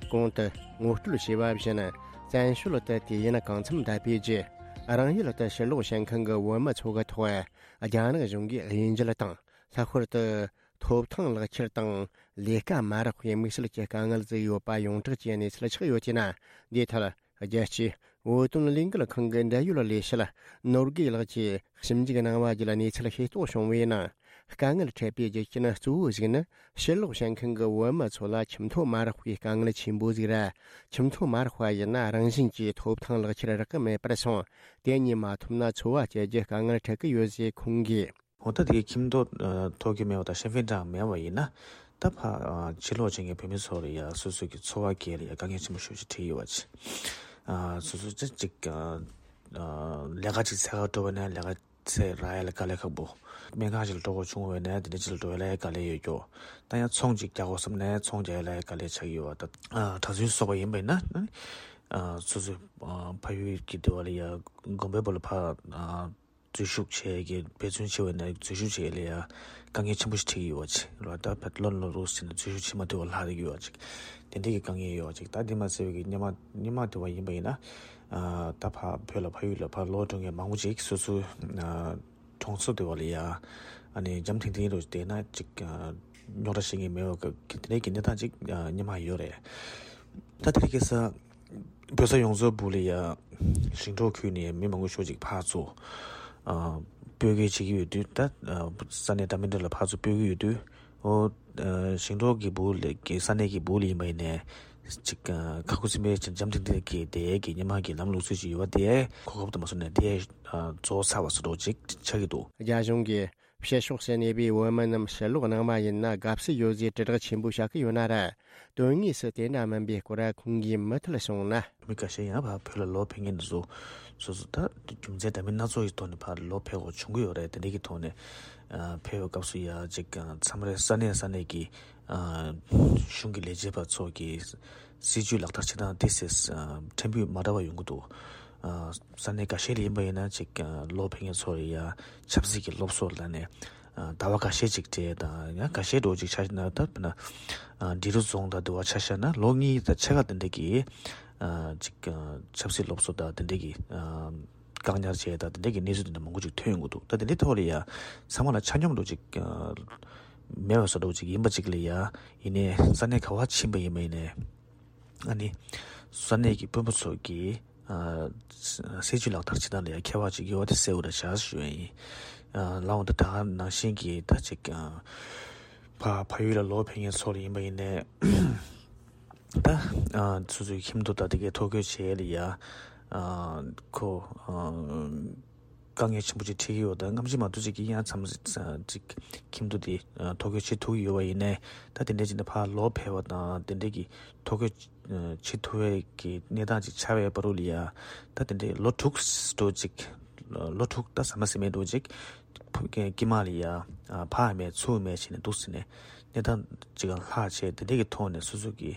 གོང་དུ་ངོ་སྤྲོད་བྱས་པ་བཞིན། བཙན་བྱོལ་དུ་དུས་ཡུན་གང་འཚམ་བསྡད་པའི་རྗེས། རང་ཡུལ་དུ་ཕྱིར་ལོག་བྱེད་མཁན་གྱི་བོད་མི་ཚོ་གི་ཐོག་རྒྱ་ནག་གཞུང་གིས་དབྱེ་འབྱེད་དང་། ལྷག་པར་དུ་ཐོབ་ཐང་ལག་ཁྱེར་དང་ལས་ཀ་མ་རག་པའི་དམིགས་བསལ་གྱི་དཀའ་ངལ་བཟོས་ཡོད་པ་ཡོངས་གྲགས་ཀྱི་གནས་ཚུལ་ཆགས་ཡོད་ཅེ་ན། འདིའི་ཐད། རྒྱལ་སྤྱིའི་བོད་དོན་ལས་འགུལ་ཁང་གི་འབྲེལ་ཡོད་ལས་བྱེད་ནོར་རྒྱས་ལགས་ཀྱིས་ཞིབ་འཇུག་གནང་བ་བརྒྱུད་གནས་ཚུལ་ཤེས་རྟོགས་བྱུང་བའི་ནང་། དཀའ་ངལ་འཕྲད་པའི་རྒྱུ་རྐྱེན་གཙོ་བོ་ཞིག་ནི། ཕྱིར་ལོག་བྱེད་མཁན་གྱི་བོད་མི་ཚོ་ལ་ཁྱིམ་ཐོ་མ་རག་པའི་དཀའ་ངལ་ཆེན་པོ་ཟིག་རེད། ཁྱིམ་ཐོ་མ་རག་པ་ཡིན་ན་རང་བཞིན་གྱིས་ཐོབ་ཐང་ལག་ཁྱེར་རག་གི་མེད་པར་སོང་། དེ་གཉིས་མ་ཐོབ་ན་འཚོ་བ་སྐྱེལ་རྒྱུ་དཀའ་ངལ་འཕྲད་ཀྱི་ཡོད་ཅེས་ཁོང་གིས། འོ་ད་དེ་ཁྱིམ་ཐོ་ཐོབ་ཀྱི་མེད་པ་དང་ཤེན་ཧྥིན་ཀྲང་མེད་པ་ཡིན་ན། ད་ཕར་ཕྱིར་ལོག་བྱེད་མཁན་བོད་མི་ཚོ་ལ་ཡ་སོ་སོ་གི་འཚོ་བ་སྐྱེལ་ལ་ཡ་དཀའ་ངལ་ཆེན་པོ་ཞེ་པོ་ཅིག་འཕྲད་ཡོད་པ་ཅིག་སོ་སོ་ཅིག་ཅིག་ལས་ཀ་ཅིག་འཚོལ་ག་འགྲོ་བ་ན་ལས་ཀ་འཚོལ་རག་ཡ་ལ་དཀའ་ལས་ཁག་པོ། སྨན་ཁང་ཅིག་ལ་འགྲོ་དགོས་བྱུང་བ་ན་དེ་འདྲ་ཅིག་ལ་འགྲོ་ཡ་ལ་ཡ་དཀའ་ལས་ཡོད་ཀྱོ། ད་ཡང་ཚོང་ཅིག་རྒྱག་དགོས་བསམ་ན་ཚོང་རྒྱག་ཡ་ལ་ཡ་དཀའ་ལས་ཆགས་ཀྱི་ཡོད་པ། ད་གྲྭ་བཙུན་སོགས་པ་ཡིན་པ་ཡིན་ན་སོ་སོའི་ཕ་ཡུལ་གྱི་སྡེ་བ་ལ་ཡ་དགོན་པའི་བར་ལ་ཕར། འཛུལ་ཞུགས་བྱེད་ཀྱི་འབད་བརྩོན་བྱེད་པ་ན་འཛུལ་ཞུགས་བྱེད་ལ་ཡ་དཀའ་ངལ་ཆེན་པོ་ཞིག་འཕྲད་ཀྱི་ཡོད་པ་ཅིག་རེད། ད་ཕར་ལོ་ལོ་རུ་ཟིན་ན་འཛུལ་ཞུགས་བྱེད་མ་ཐུབ་པ་ལྷག་བསྡད་ཀྱི་ཡོད་པ་ཅིག་དེ་འདྲ་གི་དཀའ་ངལ་ཡོད་པ་ཅིག་ད་དེ་མ་ཟད་པའི་གི་སྔོན་མ་སྔོན་མ་དེ་བ་ཡིན་པ་ཡིན་ན། ད་ཕར་བོད་ལ་ཕ་ཡུལ་ལ་ཕར་ལོག་འགྲོ་མཁན་མང་པོ་ཅིག་སོ་སོའི་གྲོང་ཚོ་དེ་བ་ལ་ཡ་ཨ་ནི་འཇམ་ཐིང་ཐིང་རུ་བསྡད་ན་ཅིག་རྙོག་དྲ་བཤད་མཁན་མེད་པ་གི་དེ་འདྲ་གི་གནས་སྟངས་ཅིག་སྔོན་མ་ཡོད་རེད། ད་དེ་རིང་ཁ་སང་བོད་ས་ཡོངས་རྫོགས་སྦུག་ལ་ཡ་ཞིང་འབྲོག་ཁུལ་ནས་མི་མང་པོ་ཤོས་ཅིག་ཕར་ཚུར་ཨ་སྤོ་སྒྱུར་བྱེད་ཀྱི་ཡོད་དུས། ད་ཨ་ས་གནས་འདྲ་མི་འདྲ་ལ་ཕར་ཚུར་སྤོ་གི་ཡོད་དུས། ཨོ་ཨ་ཞིང་འབྲོག་གི་སྦུག་ལ་གི་ས་གནས་ཀྱི་སྦུག་ལ་ཡིན་པ་ཡིན་ནའི་ཅིག་ཨ་ཁ་ཁུ་སིམ་པའི་ཅིག་འཇམ་ཐིང་ཐིང་གི་དེ་གི་སྔོན་མ་གི་ལམ་ལུགས་སྲོལ་ཅིག་ཡོད་པ་དེ་གོ་སྐབས་དུ་མ་སོང་ནས་དེ་ཨ་རྫོགས་ཚར་བ་བཟོ་འདྲ་ཅིག་ཆགས་ཀྱི་འདུག་རྒྱ་གཞུང་གིས་ཕྱི་ཕྱོགས་སུ་གནས་པའི་བོད་མི་རྣམས་ཕྱིར་ལོག་གནང་བ་ཡིན་ན་དགའ་བསུ་ཡོད་ཅེས་དྲིལ་བསྒྲགས་ཆེན་པོ་བྱ་གི་ཡོད་ན་ར། དོན་དངོས་སུ་དེ་འདྲ་མིན་པའི་སྐོར་ཁོང་གིས་མུ་མཐུད་གསུངས་ན། མི་ཁ་ཤས་ཡང་ཕར་བོད་ལ་ལོག་ཕེབས་མཁན་དེ་ཚོ་སོ་སོ་ད་རྒྱུ་མཚན་འདྲ་མིན་སྣ་ཚོགས་ཀྱི་ཐོག་ནས་ཕར་ལོག་ཕེབས་དགོས་བྱུང་གི་ཡོད་རེད། དེ་འདྲ་གི་ཐོག་ནས་ཨ་ཕེབས་པའི་སྐབས་སུ་ཡ་ཅིག་མཚམས་རེ་ས་གནས་ས་གནས་ཀྱི་ཨ་གཞུང་གི་ལས་བྱེད་པ་ཚོ་གི་སྲིད་ཇུས་ལག་བསྟར་བྱེད་སྟངས་དེ་སེ་ཕྲན་བུ་མ་འདྲ་བ་ཡོང་གི་འདུག་ཨ་ས་གནས་འགའ་ཤས་ལ་ཡིན་པ་ཡིན་ན་ཅིག་ཨ་ལོག་ཕེབས་མཁན་ཚོ་ལ་ཡ་ཆབ་སྲིད་ཀྱི་སློབ་གསོ་ལ་ནས་ཨ་ཟླ་བ་འགའ་ཤས་ཅིག་སྤྲད་དང་ཡང་འགའ་ཤས་འགྲོ་ཅིག་ཆ་ན་ད་དཔེར་ན་ཨ་འབྲི་རུ་རྫོང་དང་དེ་བ་ཆ་བཞག་ན་ལོ་གཉིས་དང་ཕྱེད་ཀ་དེ་འདྲ་གི་ཨ་ཅིག་ཨ་ཆབ་སྲིད་སློབ་གསོ་དང་དེ་འདྲ་གི་ཨ་བཀག་ཉར་བྱས་དང་དེ་འདྲ་གི་གནས་ཚུལ་དེ་འདྲ་མང་པོ་ཅིག་ཐོན་ཡོང་གི་འདུག་ད་དེ་འདྲའི་ཐོག་ལ་ཡ་ཚང་མ་ལ་ཆ་སྙོམས་འགྲོ་ཅིག་ཨ་མེད་པ་བཟོ་འདྲ་ཅིག་ཡིན་པ་ཅིག་ལ་ཡ་ཡིན་ནའི་ས་གནས་ག་བ་ཕྱིན་པ་ཡིན་པ་ཡིན་ནའི། ཨ་ནི་ས་གནས་ཀྱི་དཔོན་པོ་ཚོ་གིས་ཨ་སྲིད་ཇུས་ལག་བསྟར་བྱེད་སྟངས་ལ་ཡང་ཁྱད་པར་ཅིག་ཡོད་པ་དེ་གསལ་པོ་རེད་བཞག་ཞུ་ཡ་ཡིན། ཨ་ལའང་ད་ད་ག་ནང་བཞིན་གྱི་ད་ཅིག་ཨ་ཕ་ཕ་ཡུལ་ལ་ལོག་ཕེབས་མཁན་ཚོ་ལ་ཡིན་པ་ཡིན་ནའི་ད་ཨ་སོ་སོའི་ཁྱིམ་ཐོ་ད་དེ་གའི་ཐོ་འགོད་བྱེད་ཡ་ལ་ཡ་ཨ་ཁོ་ཨ། དཀའ་ངལ་ཆེན་པོ་ཅིག་འཕྲད་ཀྱི་ཡོད། ད་སྔ་ཕྱི་མ་གཏོགས་ཅིག་གི་ཡང་མཚམས་ཅིག་ཁྱིམ་ཐོ་དེ་ཐོ་འགོད་བྱེད་ཐུབ་ཀྱི་ཡོད་པ་ཡིན་ནའི་ད་དེ་འདྲའི་ཅིག་ནས་ཕར་ལོག་ཕེབས་པ་དང་དེ་འདྲའི་གི་ཐོ་འགོད་བྱེད་ཐུབ་པའི་གི་གནས་སྟངས་ཅིག་ཆགས་པའི་བར་དུ་ལ་ཡ་ད་དེ་འདྲའི་ལོ་དྲུག་འགྲོ་ཅིག་ལོ་དྲུག་ད་ཟ་མ་ཟ་མེད་འགྲོ་ཅིག་དཀྱིལ་མ་ལ་ཡ་ཕར་མེད་ཚུར་མེད་བྱས་ནས་འདུག་ཟེར་ནས་གནས་སྟངས་ཅིག་ལྷག་བྱས་དེ་འདྲའི་གི་ཐོག་ནས་སོ་སོ་གི་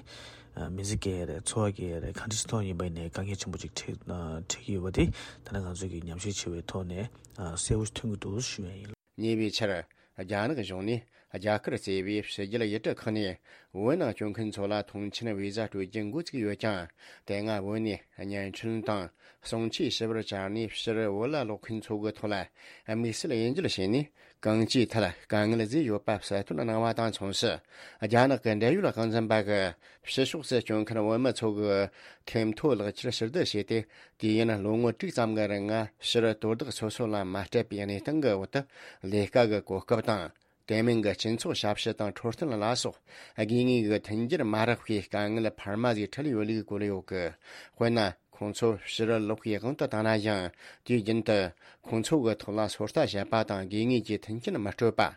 ཨ་མི་ཚེ་སྐྱེལ་ཡ་རེད། འཚོ་བ་སྐྱེལ་ཡ་རེད། གང་འདྲ་ཅིག་ཐོག་ཡིན་པ་ཡིན་ནའི་དཀའ་ངལ་ཆེན་པོ་ཅིག་འཕྲད་ཨ་འཕྲད་ཀྱི་ཡོད་པ་དེ་ད་ནི་ང་ཚོ་གིས་ཉམས་ཞིབ་བྱས་པའི་ཐོག་ནས་ཨ་གསལ་པོ་ཐོན་གྱི་འདུག་ཞུ་ཡ་ཡིན། ཉེ་བའི་ཆར་ རྒྱ་ནག་གཞུང་ནས་རྒྱ་གར་གཙོས་པའི་ཕྱི་རྒྱལ་ཡུལ་གྲུ་ཁག་ནས་བོད་ནང་བསྐྱོད་མཁན་ཚོ་ལ་མཐོང་མཆན་བི་ཟ་སྤྲོད་རྒྱུ་འགོ་བཙུགས་ཡོད་ཀྱང་། དེ་སྔ་བོད་ནས་བརྙན་འཕྲིན་དང་གསུང་ཆོས་ཞུ་བར་བཅར་ནས་ཕྱིར་བོད་ལ་ལོག་མཁན་ཚོ་གི་ཐོག་ལ་དམིགས་བསལ་དབྱེ་འབྱེད་བྱས་ནས། གང་ཅིའི་ཐད་དཀའ་ངལ་བཟོས་ཡོད་པ་གསལ་སྟོན་གནང་བ་དང་མཚུངས་སུ། རྒྱ་ནག་གི་འབྲེལ་ཡོད་དབང་འཛིན་པ་གིས་ཕྱི་ཕྱོགས་སུ་བསྐྱོད་མཁན་བོད་མི་ཚོ་གི་ཐེམ་ཐོ་ལག་ཁྱེར་ཕྱིར་བསྡུ་བྱས་ཏེ། དུས་ཡུན་ལོ་ངོ་དྲུག་ཙམ་གྱི་རིང་ཕྱིར་དོ་བདག་སོ་སོ་ལ་མ་སྤྲད་པའི་གནས་སྟངས་ཀྱི་འོག་ཏུ། ལས་ཀ་གི་གོ་སྐབས་དང་། དེ་མིན་གྱི་སྤྱི་ཚོགས་ཞབས་ཞུ་དང་འཕྲོད་བསྟེན་ལ་སོགས་དགོས་ངེས་ཀྱི་མཐུན་འགྱུར་མ་རག་པའི་དཀའ་ངལ་འཕར་མ་ཟིག་འཕྲད་ཡོད་ལུགས་བཀོད་ཡོད་གི། དཔེར་ན། ཁོང་ཚོ་ཕྱིར་ལོག་པའི་དབང་དུ་བཏང་ན་ཡང་། དུས་རྒྱུན་དུ་ཁོང་ཚོ་གི་ཐོག་ལ་ཚོད་ལྟ་བྱེད་པ་དང་དགོས་ངེས་ཀྱི་མཐུན་རྐྱེན་མི་སྤྲོད་པ།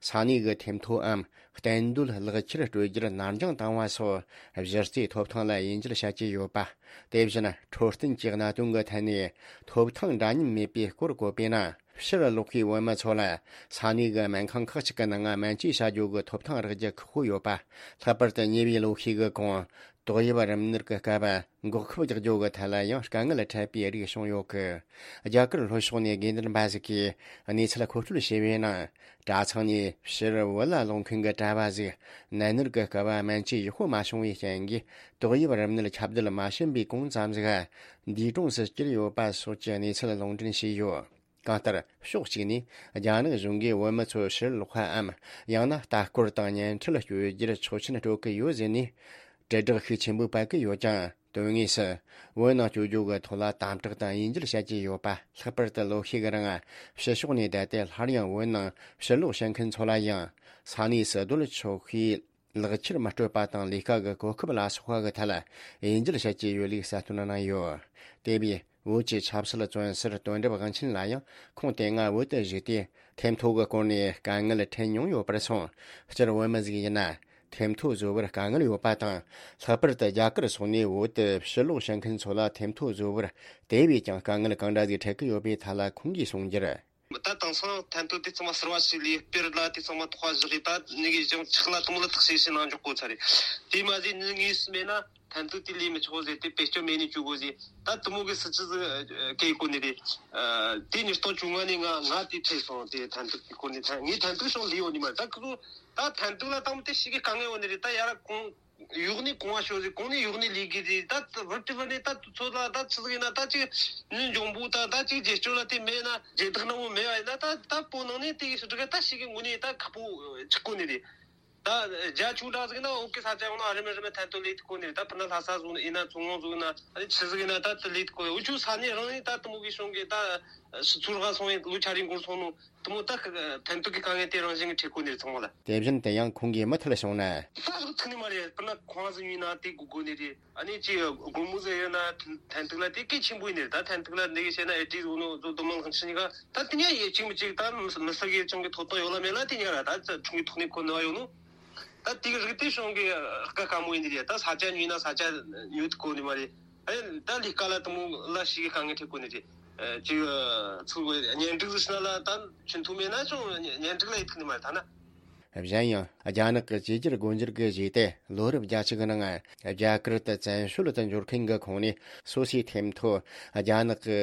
ས་གནས་ཀྱི་ཐེམ་ཐོའམ་གཏན་སྡོད་ལག་ཁྱེར་སྤྲོད་རྒྱུར་ནར་འགྱངས་བཏང་བ་སོགས་གཞི་རྩའི་ཐོབ་ཐང་ལ་དབྱེ་འབྱེད་བྱ་རྒྱུ་ཡོད་པ། དེ་བཞིན་འཕྲོད་བསྟེན་གྱི་གནད་དོན་གྱི་ཐད་ནས་ཐོབ་ཐང་འདྲ་མཉམ་མེད་པའི་སྐོར་བཀོད་པས་ན། ཕྱིར་ལོག་པའི་བོད་མི་ཚོ་ལ་ས་གནས་ཀྱི་སྨན་ཁང་ཁག་ཅིག་གི་ནང་སྨན་བཅོས་བྱ་རྒྱུ་གི་ཐོབ་ཐང་རག་རྒྱུ་ཁག་པོ་ཡོད་པ། ལྷག་པར་དུ་ཉེ་བའི་ལོ་ཤས་ཀྱི་གོང་ཏོག་དབྱིབས་རིམས་ནད་ཀྱི་སྐབས་འགོག་ཁབ་རྒྱག་རྒྱུ་གི་ཐད་ལ་ཡང་དཀའ་ངལ་འཕྲད་པའི་རིགས་བྱུང་ཡོད་གི། རྒྱ་གར་ལྷོ་ཕྱོགས་ནས་དགོས་འདུན་པ་ཟིག་གིས་གནས་ཚུལ་མཁོ་སྤྲོད་བྱས་པའི་ནང་། གྲྭ་ཚང་ནས་ཕྱིར་བོད་ལ་ལོག་མཁན་གྱི་གྲྭ་བ་ཟིག་ནད་མནར་གྱི་སྐབས་སྨན་བཅོས་ཡག་པོ་མ་བྱུང་བའི་རྐྱེན་གྱིས་ཏོག་དབྱིབས་རིམས་ནད་ཁྱབ་གདལ་མ་ཕྱིན་པའི་གོང་ཙམ་ཟིག་འདས་གྲོངས་སུ་གྱུར་ཡོད་པ་སོགས་ཀྱི་གནས་ཚུལ་ལུང་འདྲེན་བྱས་ཡོད། གང་ལྟར་ཕྱོགས་གཅིག་ནས་རྒྱ་ནག་གཞུང་གིས་བོད་མི་ཚོ་ཕྱིར་ལོག་པའམ་ཡང་ན་ལྟ་སྐོར་དང་བརྙན་འཕྲིན་སྤྱོད་རྒྱུར་ཆོག་མཆན་སྤྲོད་ཀྱི་ཡོད་ཟེར་ནས་དྲིལ་བསྒྲགས་ཤུགས་ཆེན་པོས་སྤེལ་གྱི་ཡོད་ཀྱང་། དོན་དངོས་སུ་བོད་ནང་བསྐྱོད་རྒྱུ་གི་ཐོག་ལ་དམ་དྲག་དང་དབྱེ་འབྱེད་བྱ་རྒྱུ་ཡོད་པ། ལྷག་པར་དུ་ལོ་ཤས་ཀྱི་རིང་ཕྱི་ཕྱོགས་ནས་བསྡད་དེ་སླར་ཡང་བོད་ནང་ཕྱིར་ལོག་བྱེད་མཁན་ཚོ་ལ་ཡང་ས་གནས་སུ་སྡོད་ཆོག་པའི་ལག་ཁྱེར་མི་སྤྲོད་པ་དང་ལས་ཀ་གི་གོ་སྐབས་ལ་སོགས་པ་གི་ཐད་ལ་དབྱེ་འབྱེད་བྱ་རྒྱུ་ཡོད་ལུགས་གསལ་སྟོན་གནང་ཡོད། དེ་བས་བོད་ཀྱི་ཆབ་སྲིད་བཙོན་ཟུར་དོན་གྲུབ་དབང་ཆེན་ལ་ཡང་ཁོང་དེ་སྔ་བོད་དུ་བཞུགས་ཏེ་ཐེམ་ཐོ་གི་སྐོར་ནས་དཀའ་ངལ་འཕྲད་མྱོང་ཡོད་པར་སོང་། སྤྱིར་བོད་མི་ཟིག་ཡིན་ན་ཐེམ་ཐོ་བཟོ་བར་དཀའ་ངལ་ཡོད་པ་དང་། ལྷག་པར་དུ་རྒྱ་གར་སོགས་ནས་བོད་དུ་ཕྱིར་ལོག་བྱེད་མཁན་ཚོ་ལ་ཐེམ་ཐོ་བཟོ་བར་དེ་བས་ཀྱང་དཀའ་ངལ་གང་འདྲ་ཟིག་འཕྲད་ཀྱི་ཡོད་པའི་ཐད་ལ་ཁོང་གིས་གསུངས་རྒྱུར། ད་དེང་སང་ཐན་ཐུན་དེ་ཚང་མ་གསར་བ་ཞིག་ལས་སྤེལ་ལ་དེ་ཚང་མ་ཐོག་བཞག་གི། ད་ནི་གི་ཞིང་ཆག་ལ་དུམ་ལ་ཐག་ཤེས་ཤེས་ནང་འཇོག་གོ་ཚར་རེད། དེ་མ་ཟད་ནི་ངེས་སུ་མེད་ན་ཐན་ཐུན་དེ་ལས་མི་ཆོག་ཟེར་ཏེ་བེད་སྤྱོད་མེད་ནས་བཅུག་གོ་ཟེར། ད་དུ་མོ་གི་སྲིད་ཇུས་ཟིག་གེ་གོ་ནི་རེད། དེ་ཉིས་སྟོང་བཅོ་ལྔ་ནས་ང་ང་དེ་ཁྲིད་སོང་། དེ་ཐན་ཐུན་དེ་གོ་ནི་ཐན་ངས་ཐན་ཐུན་སོང་ལས་ཡོད་ནི་མ་རེད། ད་ཁོ་ད་ཐན་ཐུན་ལ་དང་པོ་དེ་ཞིག་གི་དཀའ་ངལ་ཡོད་ནི་རེད། ད་ཡར་གོང་ཡོག་ནས་གོང་བ་ཤོར་ཟིག་གོང་ནས་ཡོག་ནས་ལས་གི་རེད། ད་བར་དུ་བར་ནས་ད་ཚོད་ལ་ད་ཆི་ཟིག་ཡིན་ན། ད་ཅིག་ནི་འཇོང་པོ་ད་ད་ཅིག་རྗེས་སྐྱོང་ལ་དེ་མེད་ན་རྗེས་བདག་ནང་མོ་མེད་བ་ཡིན་ན། ད་ད་པོ་ནང་ནས་དེ་ཡི་སུ་དྲུག་ད་ཞིག་གི་ངོ་ནས་ད་ཁག་པོ་ཆགས་གོ་ནི་རེད། ད་རྒྱ་ཆུ་འདྲ་ཟིག་ན་འོག་གི་ས་ཆ་ཡོང་ན་རི་མི་རི་མི་ཐན་ཐོ་ལས་ཐུབ་གོ་ནི་རེད། ད་ཕུ་ན་ལྷ་ས་ཟུག་ཡིན་ན་མཚོ་སྔོན་ཟུག་ཡིན་ན་ཨ་ནི་ཆི་ཟིག་ཡིན་ན་ད་དེ་ལས་ཐུབ་གོ། འུ་ཆུ་ས་གནས་རང་ནས་ད་དུ་མོ་གི་གཞུང་གི་ད་ཕྱི་ཚུལ་ཧ་སོང་ཡིན། ལོ་ཆ་རིང་འགོར་སོང་ནོ། དུ་མོ་ད་ཐན་ཐུན་གི་དཀའ་ངལ་དེ་རང་བཞིན་གྱི་འཕྲད་གོ་ནི་རེད་ཚང་མ་ལ། དེ་བཞིན་དུ་ཡང་ཁོང་གིས་མུ་མཐུད་བྱུང་ན། ད་ཐུག་ནི་མ་རེད། སྤུ་ན་ཁོང་ཟིག་ཉོས་ན་དེ་དགོས་དགོས་ནི་རེད། ཨ་ནི་ཅི་སྒོར་མོ་ཟིག་ཡོད་ན་ཐན་ཐུན་ལ་དེ་གལ་ཆེན་པོ་ཡིན་ནི་རེད། ད་ཐན་ཐུན་ལ་འདི་གི་བཤད་ན་ཨེ་ཏི་ཟོ་ནོ་ཟོ་དུ་མང་ཁང་ཆི་ནི་ག་ད་དེ་ཉ་ཡེ་གཅིག་མི་གཅིག་ད་མི་ས་གི་ཅང་གི་ཐོབ་ཐང་ཡོད་ལ་མེད་ལ་དེ་ཉ་ར་ད་ཚ་ཁྲུང་གི་ཐོག་ནས་ཁོ་ནི་བ་ཡོད་ནོ། ད་དེ་གི་རིགས་དེ་གཞུང་གི་ཁ་ཁ་མོ་ཡིན་ནི་རེད། ད་ས་ཆ་ཉོས་ན་ས་ཆ་ཉོ་ཐུབ་གོ་ནི་མ་རེད། ཨེ་ད་ལས་ཀ་ལ་དུ་མོ་ལ་ཞིག་གི་དཀའ་ངལ་འཕྲད་གོ་ནི་རེད། ཅིག་ཚུར་གཉེན་སྒྲིག་ཟེར་ན་ལ་ད་ཆུན་ཐུ་མེད་ན་ཅང་གཉེན་སྒྲིག་ལ་ཡིད་ཐུག་ནི་མ་རེད་ད་ན། གཞན་ཡང་རྒྱ་ནག་གི་བཅོས་བསྒྱུར་སྒོ་འབྱེད་ཀྱི་རྗེས་ཏེ་ལོ་རབས་བརྒྱད་ཅུ་གི་ནང་རྒྱ་གར་དུ་བཙན་བྱོལ་དུ་འབྱོར་མཁན་གྱི་ཁོངས་ནས་སོ་སོའི་ཐེམ་ཐོ་རྒྱ་ནག་གི་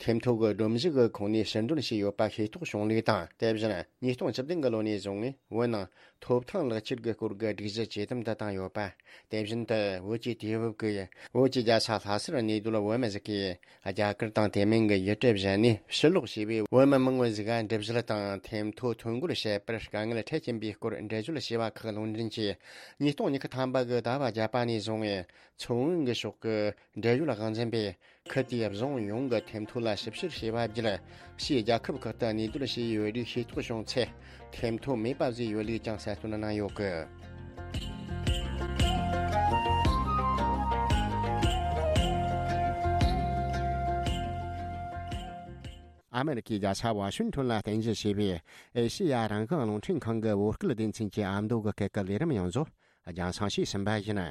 ཐེམ་ཐོ་གི་སྒྲོམ་གཞི་གི་ཁོངས་ནས་ཕྱིར་འདོན་བྱས་ཡོད་པ་ཤེས་རྟོགས་བྱུང་ལུགས་དང་། དེ་བཞིན་ཉིས་སྟོང་བཅུ་བདུན་གྱི་ལོ་ནས་བཟུང་ངས་བོད་ནང་ཐོབ་ཐང་ལག་ཁྱེར་གྱི་སྐོར་གྱི་སྒྲིག་གཞི་ཇེ་དམ་དུ་བཏང་ཡོད་པ། དེ་བཞིན་དུ་བོད་ཀྱི་དུས་བབ་ཀྱི་བོད་ཀྱི་རྒྱལ་ས་ལྷ་སར་གནས་སྡོད་བོད་མི་ཟིག་གིས་རྒྱ་གར་དང་དེ་མིན་གྱི་ཡུལ་གྲུ་གཞན་ནས་ཕྱིར་ལོག་བྱས་པའི་བོད་མི་མང་བོ་ཟིག་ག་འགྲུལ་བཞུད་དང་ཐེམ་ཐོ་ཐོ་འགོད་བྱེད་པར་དཀའ་ངལ་འཕྲད་ཀྱིན་པའི་སྐོར་འགྲེལ་བརྗོད་བྱས་པ་ཁག་ལུང་འདྲེན་གྱིས། ཉིས་སྟོང་ཉི་ཤུ་ཐམ་པ་གི་ཟླ་བ་བརྒྱད་པ་ནས་བཟུང་ངས་མཚོ་སྔོན་གྱི་ཕྱོགས་ཀྱི་འབྲེལ་ཡོད་དབང་འཛིན་པས། ཁུལ་དེའི་རྫོང་ཡོངས་ཀྱི་ཐེམ་ཐོ་ལ་ཞིབ་བཤེར་བྱས་པ་བརྒྱུད། ཕྱིའི་རྒྱལ་ཁབ་ཁག་ཏུ་གནས་སྡོད་བྱས་ཡོད་རིགས་ཤེས་རྟོགས་བྱུང་ཚེ། ཐེམ་ཐོ་མེད་པ་བཟོས་ཡོད་ལུགས་ཀྱང་གསལ་སྟོན་གནང་ཡོད་གི། ཨ་མེ་རི་ཁའི་རྒྱལ་ས་ཝ་ཤིང་ཊོན་ལ་རྟེན་གཞི་བྱས་པའི་ཨེ་ཤེ་ཡ་རང་དབང་རླུང་འཕྲིན་ཁང་གི་བོད་སྐད་སྡེ་ཚན་གྱི་ཨ་མདོ་གི་སྐད་ཀྱི་ལས་རིམ་ཡོངས་རྫོགས་རྒྱང་སྲིང་ཞུས་ཟིན་པ་ཡིན།